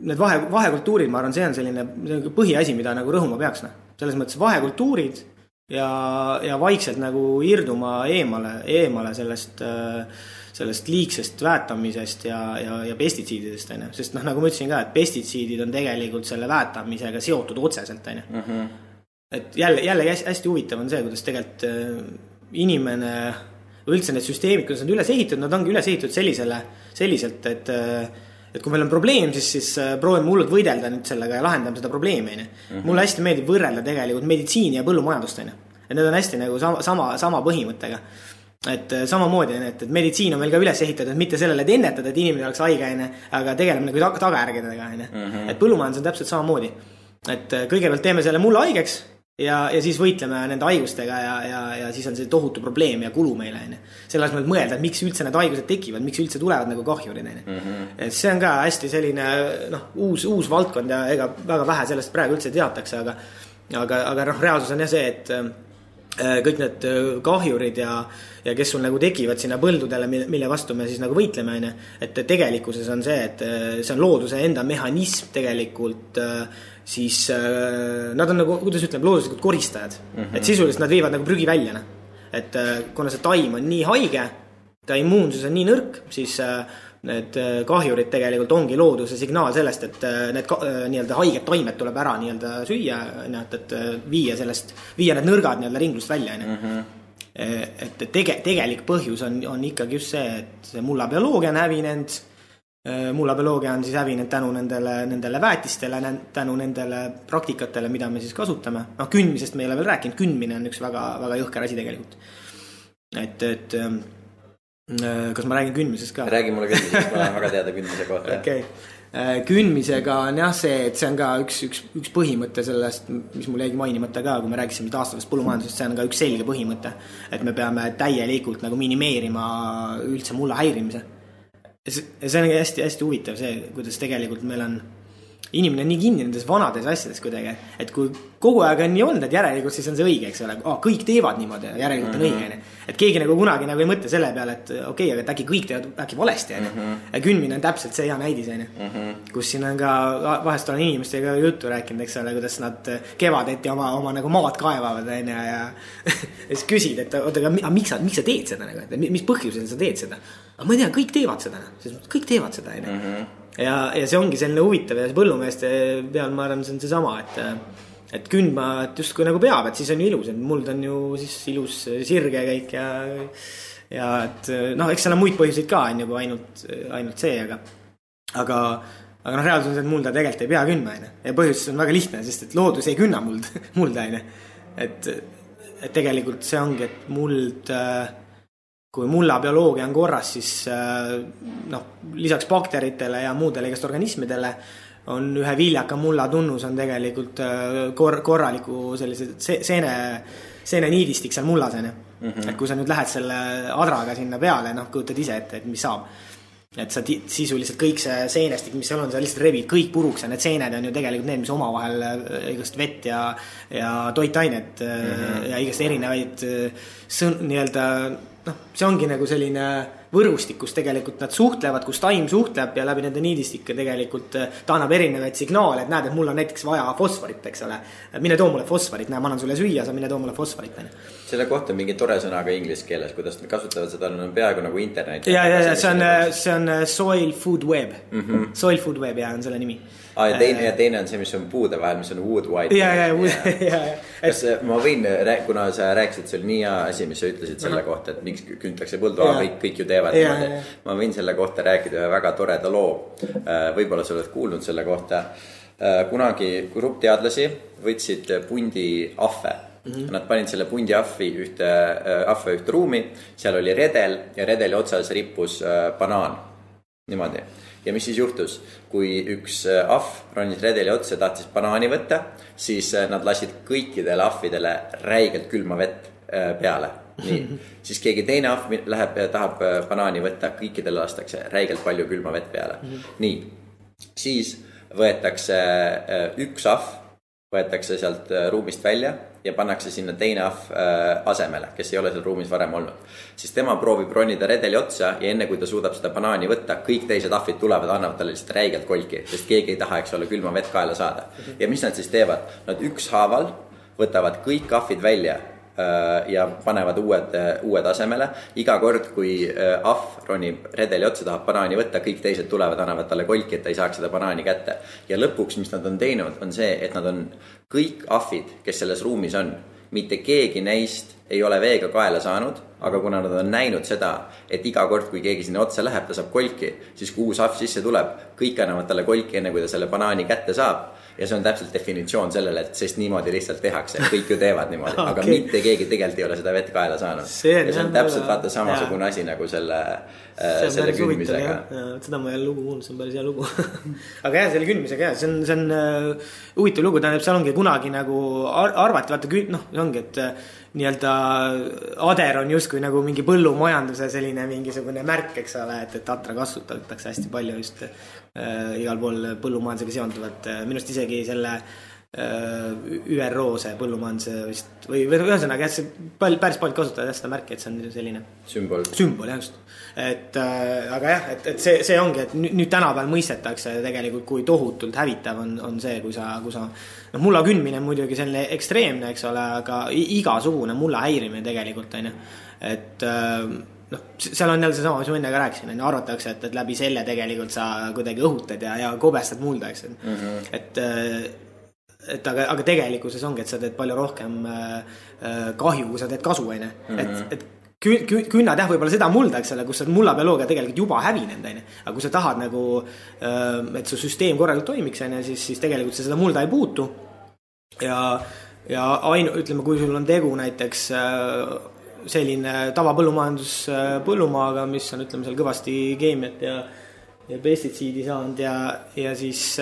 S2: need vahekultuurid, ma arvan, see on selline põhiasi, mida nagu rõhuma peaks. Selles mõttes vahekultuurid ja vaikselt nagu irduma eemale sellest liigsest väetamisest ja pestitsiididest, sest nagu ma ütlesin ka, et pestitsiidid on tegelikult selle väetamisega seotud otseselt. Et jälle hästi huvitav on see, kuidas tegelikult inimene üldse need süsteemid, kuidas nad üles ehitatud, nad ongi üles ehitatud selliselt, et kui meil on probleem, siis proovime hullult võidelda nüüd sellega ja lahendame seda probleemi. Mulle hästi meeldib võrrelda tegelikult meditsiini ja põllumajandust. Et need on hästi nagu sama põhimõttega. Et samamoodi, et meditsiin on meil ka üles ehitatud, mitte sellele, et ennetada, et inimene oleks haige, aga tegeleme nagu tagajärgedega. Et põllumajandus on täpselt samamoodi. Et kõigepealt teeme selle mulle haigeks ja siis võitleme nende haigustega ja siis on see tohutu probleem ja kulu meile. Selles mõttes mõelda, et miks üldse need haigused tekivad, miks üldse tulevad nagu kahjurid. Et see on ka hästi selline uus valdkond ja ega väga vähe sellest praegu üldse teatakse, aga reaalsus on jah see, et kõik need kahjurid ja kes sul nagu tekivad sinna põldudele, mille vastu me siis nagu võitleme, et tegelikkuses on see, et see on looduse enda mehhanism tegelikult, siis nad on nagu, kuidas ütleme, looduslikud koristajad. Et sisuliselt nad viivad nagu prügi välja. Et kuna see taim on nii haige, ta immuunsus on nii nõrk, siis need kahjurid tegelikult ongi looduse signaal sellest, et need nii-öelda haiged taimed tuleb ära nii-öelda süüa, et viia need nõrgad nii-öelda ringlust välja. Et tegelik põhjus on ikkagi just see, et see mullabioloogia on hävinenud. Mullabioloogia on siis hävinenud tänu nendele väetistele, tänu nendele praktikatele, mida me siis kasutame. Kündmisest me ei ole veel rääkinud, kündmine on üks väga, väga jõhker asi tegelikult. Et kas ma räägin kündmisest ka?
S3: Räägi mulle kündmisest, ma olen väga teada kündmise kohta.
S2: Okay. kündmisega on jah see, et see on ka üks põhimõte sellest, mis mul jäigi mainimata ka, kui me rääkisime taastavast põllumajandusest, see on ka üks selge põhimõte, et me peame täielikult nagu minimeerima üldse mulla häirimise. See on hästi huvitav see, kuidas tegelikult meil on inimene on nii kinni nendes vanades asjades kuidagi, et kui kogu aeg on nii olnud, et järelikult siis on see õige, eks ole, kõik teevad niimoodi, järelikult on õige, et keegi nagu kunagi nagu ei mõtle selle peale, et okei, aga et äkki kõik teevad äkki valesti, ja kündmine on täpselt see hea näidis, kus siin on ka, vahest olen inimestega juttu rääkinud, eks ole, kuidas nad kevadeti oma nagu maad kaevavad, ja siis küsid, et oota, aga miks sa teed seda, mis põhjusel sa teed seda? Aga ma ei tea, kõik teevad seda, ja see ongi selline huvitav ja põllumeeste peal ma arvan, see on see sama, et kündma et justkui nagu peab, et siis on ju ilus, et muld on ju siis ilus sirge kõik ja et noh, eks seal on muid põhjuseid ka on ju ainult see, aga reaalsus on see, et mulda tegelikult ei pea kündma, ja põhjus on väga lihtne, sest et loodus ei künna mulda, et tegelikult see ongi, et muld kui mulla bioloogia on korras, siis lisaks bakteritele ja muudele igast organismidele on ühe viljaka mulla tunnus on tegelikult korraliku sellise seene niidistik seal mullas. Et kui sa nüüd lähed selle adraga sinna peale, kujutad ise ette, et mis saab. Et sa sisuliselt kõik see seenestik, mis seal on, sa lihtsalt revid kõik puruks ja need seened on ju tegelikult need, mis omavahel igast vett ja toitainet ja igast erinevaid nii-öelda see ongi nagu selline võrustik, kus tegelikult nad suhtlevad, kus taim suhtleb ja läbi nende niidistike tegelikult ta annab erinevaid signaale, et näed, et mul on näiteks vaja fosforit, eks ole. Mine too mulle fosforit, ma annan sulle süüa, sa mine too mulle fosforit.
S3: Selle kohta on mingi tore sõna ka inglise keeles, kuidas nad kasutavad seda, on peaaegu nagu internet.
S2: Ja see on Soil Food Web. Soil Food Web ja on selle nimi.
S3: Ja teine on see, mis on puude vahel, mis on wood white. Kas ma võin, kuna sa rääkisid, see oli nii hea asi, mis sa ütlesid selle kohta, et miks küntakse põldu, kõik ju teevad. Ma võin selle kohta rääkida ühe väga toreda loo. Võib-olla sa oled kuulnud selle kohta. Kunagi grupp teadlasi võtsid pundi ahve. Nad panid selle pundi ahve ühte ruumi, seal oli redel ja redeli otsas rippus banaan. Niimoodi. Ja mis siis juhtus? Kui üks ahv ronis redeli otsa ja tahtis banaani võtta, siis nad lasid kõikidele ahvidele räigelt külma vett peale. Nii. Siis keegi teine ahv läheb ja tahab banaani võtta, kõikidele lastakse räigelt palju külma vett peale. Nii. Siis võetakse üks ahv, võetakse sealt ruumist välja ja pannakse sinna teine ahv asemele, kes ei ole seal ruumis varem olnud. Siis tema proovib ronida redeli otsa ja enne kui ta suudab seda banaani võtta, kõik teised ahvid tulevad, annavad talle lihtsalt räigelt kolki, sest keegi ei taha, eks ole, külma vett kaela saada. Ja mis nad siis teevad? Nad ükshaaval võtavad kõik ahvid välja ja panevad uued asemele. Iga kord, kui ahv ronib redeli otsa, tahab banaani võtta, kõik teised tulevad, annavad talle kolki, et ta ei saaks seda banaani kätte. Ja lõpuks, mis nad on teinud, on see, et nad on kõik ahvid, kes selles ruumis on, mitte keegi neist ei ole veega kaela saanud, aga kuna nad on näinud seda, et iga kord, kui keegi sinna otsa läheb, ta saab kolki, siis kui uus ahv sisse tuleb, kõik annavad talle kolki enne, kui ta selle banaani kätte saab. Ja see on täpselt definitsioon sellele, et sest niimoodi lihtsalt tehakse, kõik ju teevad niimoodi, aga mitte keegi tegelikult ei ole seda vett kaela saanud. Ja see on täpselt vaata samasugune asi nagu selle kündmisega.
S2: Seda ma ei ole lugu kuulnud, see on päris hea lugu. Aga jah, selle kündmisega, see on huvitav lugu, tähendab, seal ongi kunagi nagu arvati, vaata, see ongi, et nii-öelda ader on justkui nagu mingi põllumajanduse selline mingisugune märk, eks ole, et atra kasutatakse hästi palju just igal pool põllumajandusega seonduvat. Minust isegi selle ÜRO see põllumajanduse vist või ühesõnaga, et see päris palju kasutada seda märki, et see on selline sümbol, jah just. Aga jah, et see ongi, et nüüd tänapäeval mõistetakse tegelikult, kui tohutult hävitav on see, kui sa mulla kündmine on muidugi selline ekstreemne, eks ole, aga igasugune mulla häirimine tegelikult on ju, et seal on jälle see sama, mis ma enne ka rääkisin, arvatakse, et läbi selle tegelikult sa kuidagi õhutad ja kobestad mulda, eks aga tegelikkuses ongi, et sa teed palju rohkem kahju, kui sa teed kasu, et künnad võib-olla seda mulda, eks ole, kus mulla bioloogia tegelikult juba hävinenud, aga kui sa tahad nagu, et su süsteem korralikult toimiks, siis tegelikult sa seda mulda ei puutu ja ütleme, kui sul on tegu näiteks selline tavapõllumajandus põllumaaga, mis on, ütleme, seal kõvasti keemiat pestitsiidi saanud ja siis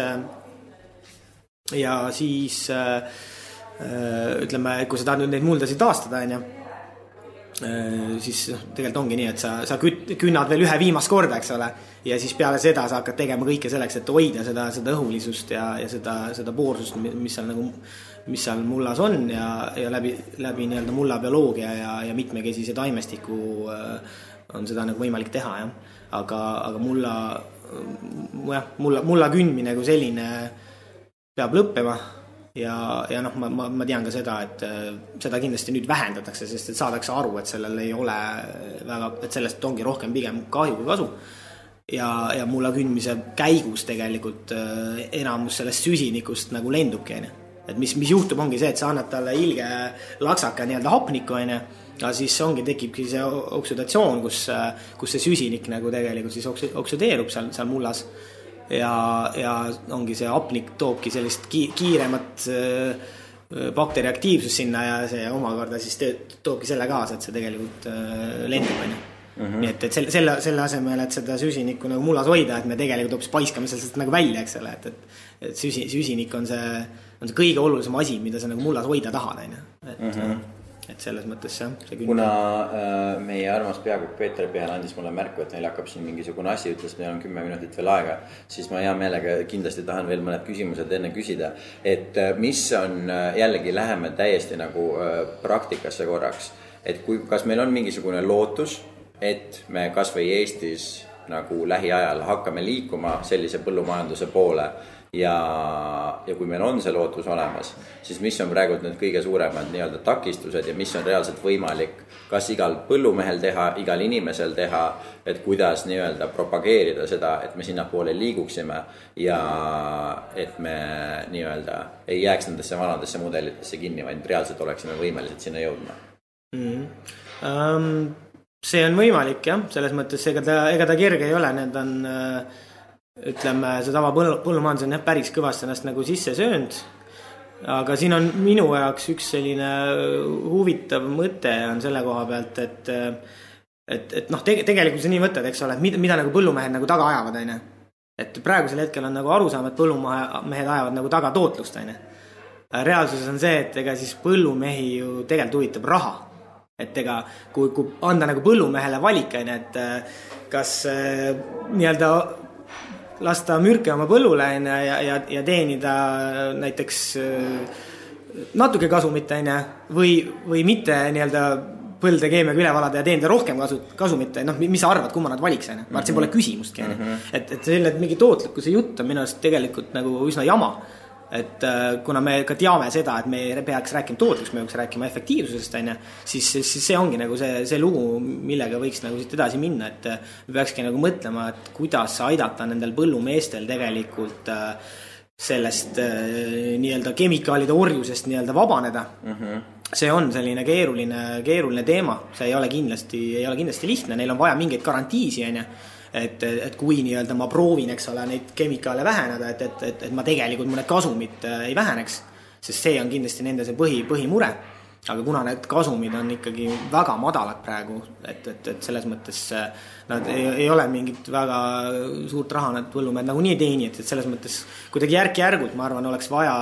S2: ütleme, kui sa tahad nüüd neid muldasid taastada, siis tegelikult ongi nii, et sa künnad veel ühe viimast korda, eks ole, ja siis peale seda sa hakkad tegema kõike selleks, et hoida seda õhulisust ja seda poorsust, mis seal mullas on ja läbi nii-öelda mulla bioloogia ja mitmekesise taimestiku on seda nagu võimalik teha, jah. Aga mulla kündmine kui selline peab lõppema ja noh, ma tean ka seda, et seda kindlasti nüüd vähendatakse, sest et saadakse aru, et sellel ei ole väga, et sellest ongi rohkem pigem kahju kui kasu. Ja mulla kündmise käigus tegelikult enamus sellest süsinikust nagu lendubki, et mis juhtub ongi see, et sa annad talle ilge laksaka nii-öelda hapniku, ja siis tekibki see oksüdatsioon, kus see süsinik nagu tegelikult siis oksüdeerub seal mullas ja ongi see hapnik toobki sellist kiiremat bakteriaktiivsust sinna ja see omakorda siis toobki selle kaasa, et see tegelikult lendub, Nii et selle asemel, et seda süsinikku nagu mullas hoida, et me tegelikult hoopis paiskame sellest nagu välja, eks ole, et süsinik on see kõige olulisem asi, mida sa nagu mullas hoida tahad, et selles mõttes see
S3: kuna meie armas peakokk Peeter Pihal andis mulle märku, et neil hakkab siin mingisugune asi, ütles, meil on 10 minutit veel aega, siis ma hea meelega kindlasti tahan veel mõned küsimused enne küsida, et mis on jällegi läheme täiesti nagu praktikasse korraks, et kas meil on mingisugune lootus, et me kas või Eestis nagu lähiajal hakkame liikuma sellise põllumajanduse poole ja kui meil on see lootus olemas, siis mis on praegu need kõige suuremad nii-öelda takistused ja mis on reaalselt võimalik kas igal põllumehel teha, igal inimesel teha, et kuidas nii-öelda propageerida seda, et me sinna poole liiguksime ja et me nii-öelda ei jääks nendesse vanadesse mudelitesse kinni, vaid reaalselt oleksime võimelised sinna jõudma.
S2: See on võimalik, jah, selles mõttes ega ta kerge ei ole, need on ütleme, see tava põllumajandus on päris kõvasti ennast nagu sisse söönud, aga siin on minu jaoks üks selline huvitav mõte on selle koha pealt, et noh, tegelikult see nii mõtled, eks ole, et mida nagu põllumehed nagu taga ajavad, et praegusel hetkel on nagu arusaam, et põllumehed ajavad nagu taga tootlust, reaalsuses on see, et ega siis põllumehi ju tegelikult huvitab raha. Et ega kui anda nagu põllumehele valik, et kas nii-öelda lasta mürke oma põllule ja teenida näiteks natuke kasumit või mitte nii-öelda põlde keemiaga üle valada ja teenida rohkem kasumit, noh, mis sa arvad, kumma nad valiks, ma arvan, see pole küsimustki, et selline mingi tootlikkuse jutt on minu arust tegelikult nagu üsna jama. Et kuna me ka teame seda, et me peaks rääkima tootliks, me peaks rääkima efektiivsusest, siis see ongi nagu see lugu, millega võiks nagu siit edasi minna, et me peakski nagu mõtlema, et kuidas aidata nendel põllumeestel tegelikult sellest nii-öelda kemikaalide orjusest nii-öelda vabaneda. See on selline keeruline teema, see ei ole kindlasti lihtne, neil on vaja mingeid garantiisi, et kui nii-öelda ma proovin, eks ole, neid kemikaale väheneda, et ma tegelikult mõned kasumid ei väheneks, sest see on kindlasti nende see põhimure, aga kuna need kasumid on ikkagi väga madalad praegu, et selles mõttes nad ei ole mingit väga suurt raha, nad põllumehed nagu nii teeni, et selles mõttes kuidagi järk-järgult, ma arvan, oleks vaja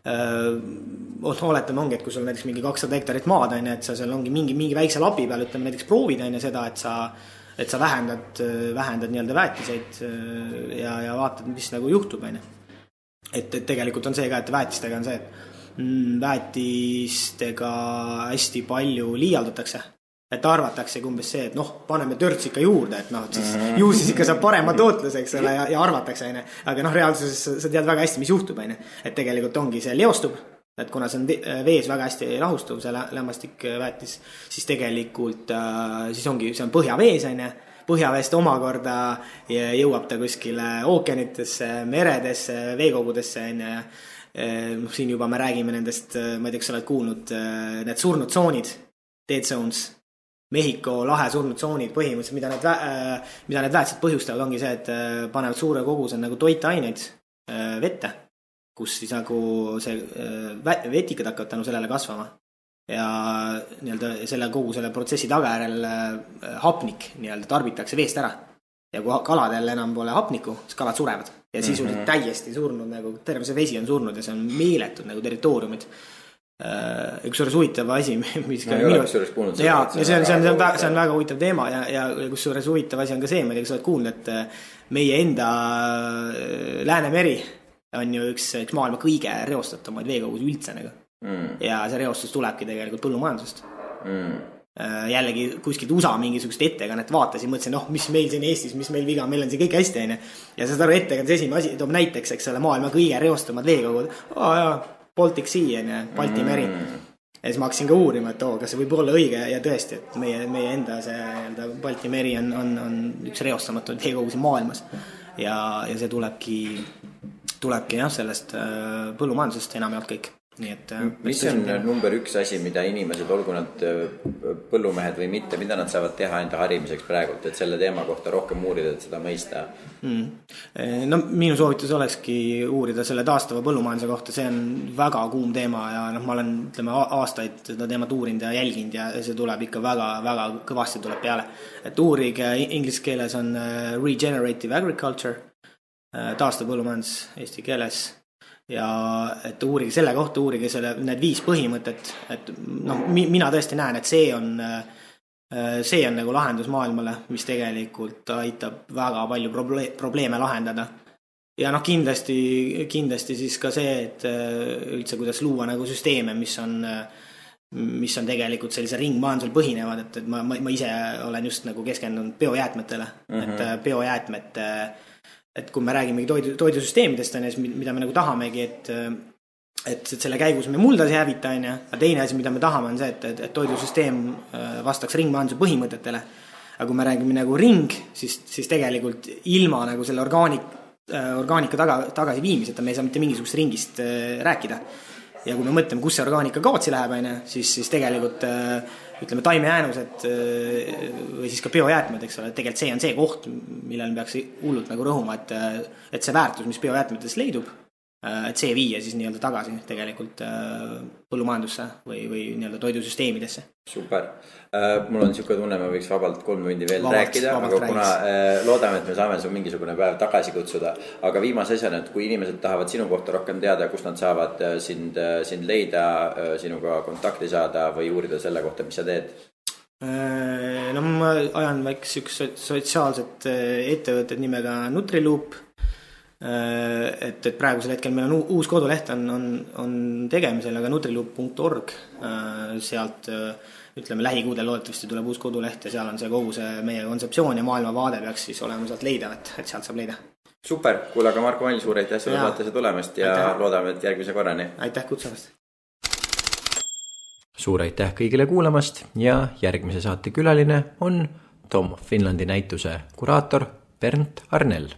S2: oletame ongi, et kui sul näiteks mingi 200 hektarit maad, et sa seal ongi mingi väikse lapi peal, ütleme näiteks proovid seda, et sa vähendad nii-öelda väetiseid ja vaatad, mis nagu juhtub. Et tegelikult on see ka, et väetistega on see, et väetistega hästi palju liialdatakse. Et arvatakse umbes see, et noh, paneme törts ikka juurde, et noh, siis ikka saab parema tootluse, eks ole, ja arvatakse. Aga noh, reaalsuses sa tead väga hästi, mis juhtub. Et tegelikult ongi see leostub. Et kuna see on vees väga hästi lahustuv, see lämmastik väetis, siis tegelikult siis ongi, see on põhjavees, põhjaveest omakorda jõuab ta kuskile ookeanitesse, meredesse, veekogudesse, siin juba me räägime nendest, ma ei tea, kas sa oled kuulnud, need surnud tsoonid, dead zones, Mehhiko lahe surnud tsoonid põhimõtteliselt, mida need väetised põhjustavad, ongi see, et panevad suure koguse nagu toitaineid vette, kus siis nagu see vetikad hakkavad tänu sellele kasvama ja nii-öelda kogu selle protsessi tagajärjel hapnik nii-öelda tarbitakse veest ära ja kui kaladel enam pole hapnikku, siis kalad surevad ja sisuliselt täiesti surnud, nagu terve see vesi on surnud ja see on meeletud nagu territooriumid. Üks suures huvitav asi, mis ka see on väga huvitav teema ja kus suures huvitav asi on ka see, ma ei tea, kas oled kuulnud, et meie enda Läänemeri on ju üks maailma kõige reostatumaid veekogus üldse nagu. Ja see reostus tulebki tegelikult põllumajandusest. Jällegi kuskilt USA mingisugust ettekannet vaatasin, mõtlesin, mis meil siin Eestis, mis meil viga, meil on see kõik hästi aine. Ja seda ettekannet esimene asi toob näiteks, eks ole, maailma kõige reostumad veekogud. Baltic Sea on ja Balti meri. Ja siis ma hakkasin ka uurima, et kas see võib olla õige ja tõesti, et meie enda see Balti meri on üks reostamatud veekogusi maailmas. Ja see tulebki jah, sellest põllumajandusest enam jaolt kõik. Nii et,
S3: mis on number 1 asi, mida inimesed, olgu nad põllumehed või mitte, mida nad saavad teha enda harimiseks praegult, et selle teema kohta rohkem uurida, et seda mõista?
S2: No minu soovitus olekski uurida selle taastava põllumajanduse kohta, see on väga kuum teema ja ma olen aastaid seda teemat uurinud ja jälginud ja see tuleb ikka väga kõvasti tuleb peale. Et uurige inglise keeles on regenerative agriculture, taastav põllumajandus eesti keeles. Ja et uurige selle kohta, uurige need 5 põhimõtet, et mina tõesti näen, et see on nagu lahendus maailmale, mis tegelikult aitab väga palju probleeme lahendada. Ja kindlasti siis ka see, et üldse kuidas luua nagu süsteeme, mis on tegelikult sellise ringmajandusel põhinevad, et ma ise olen just nagu keskendunud biojäätmetele, et biojäätmete et kui me räägime toidusüsteemidest, mida me nagu tahamegi, et selle käigus me muldas ei hävita, aga teine asi, mida me tahame, on see, et toidusüsteem vastaks ringmajanduse põhimõtetele. Aga kui me räägime nagu ring, siis tegelikult ilma nagu selle orgaanika tagasi viimiseta me ei saa mitte mingisugust ringist rääkida. Ja kui me mõtleme, kus see orgaanika kaotsi läheb, siis tegelikult ütleme taimejäänused või siis ka biojäätmed, eks ole, tegelikult see on see koht, millel peaks hullult nagu rõhuma, et see väärtus, mis biojäätmetes leidub, et see viia siis nii-öelda tagasi tegelikult põllumajandusse või nii-öelda toidusüsteemidesse.
S3: Super. Mul on niisugune tunne, ma võiks vabalt 3 tundi veel rääkida, aga kuna loodame, et me saame su mingisugune päev tagasi kutsuda, aga viimase asjana, et kui inimesed tahavad sinu kohta rohkem teada, kus nad saavad sind leida, sinuga kontakti saada või uurida selle kohta, mis sa teed?
S2: No ma ajan väikse üks sotsiaalset ettevõtted nimega Nutriloop, et praegusel hetkel meil on uus koduleht on tegemisel, aga nutriloop.org, sealt ütleme lähikuudel loodetavasti tuleb uus koduleht ja seal on see kogu see meie kontseptsioon ja maailmavaade peaks siis olema sealt leida, et sealt saab leida.
S3: Super, kuule, aga Marko Mall, suur aitäh selle saatesse tulemast ja loodame, et järgmise korrani.
S2: Aitäh kutsumast.
S1: Suur aitäh kõigile kuulamast ja järgmise saate külaline on Tom Finlandi näituse kuraator Bernt Arnell.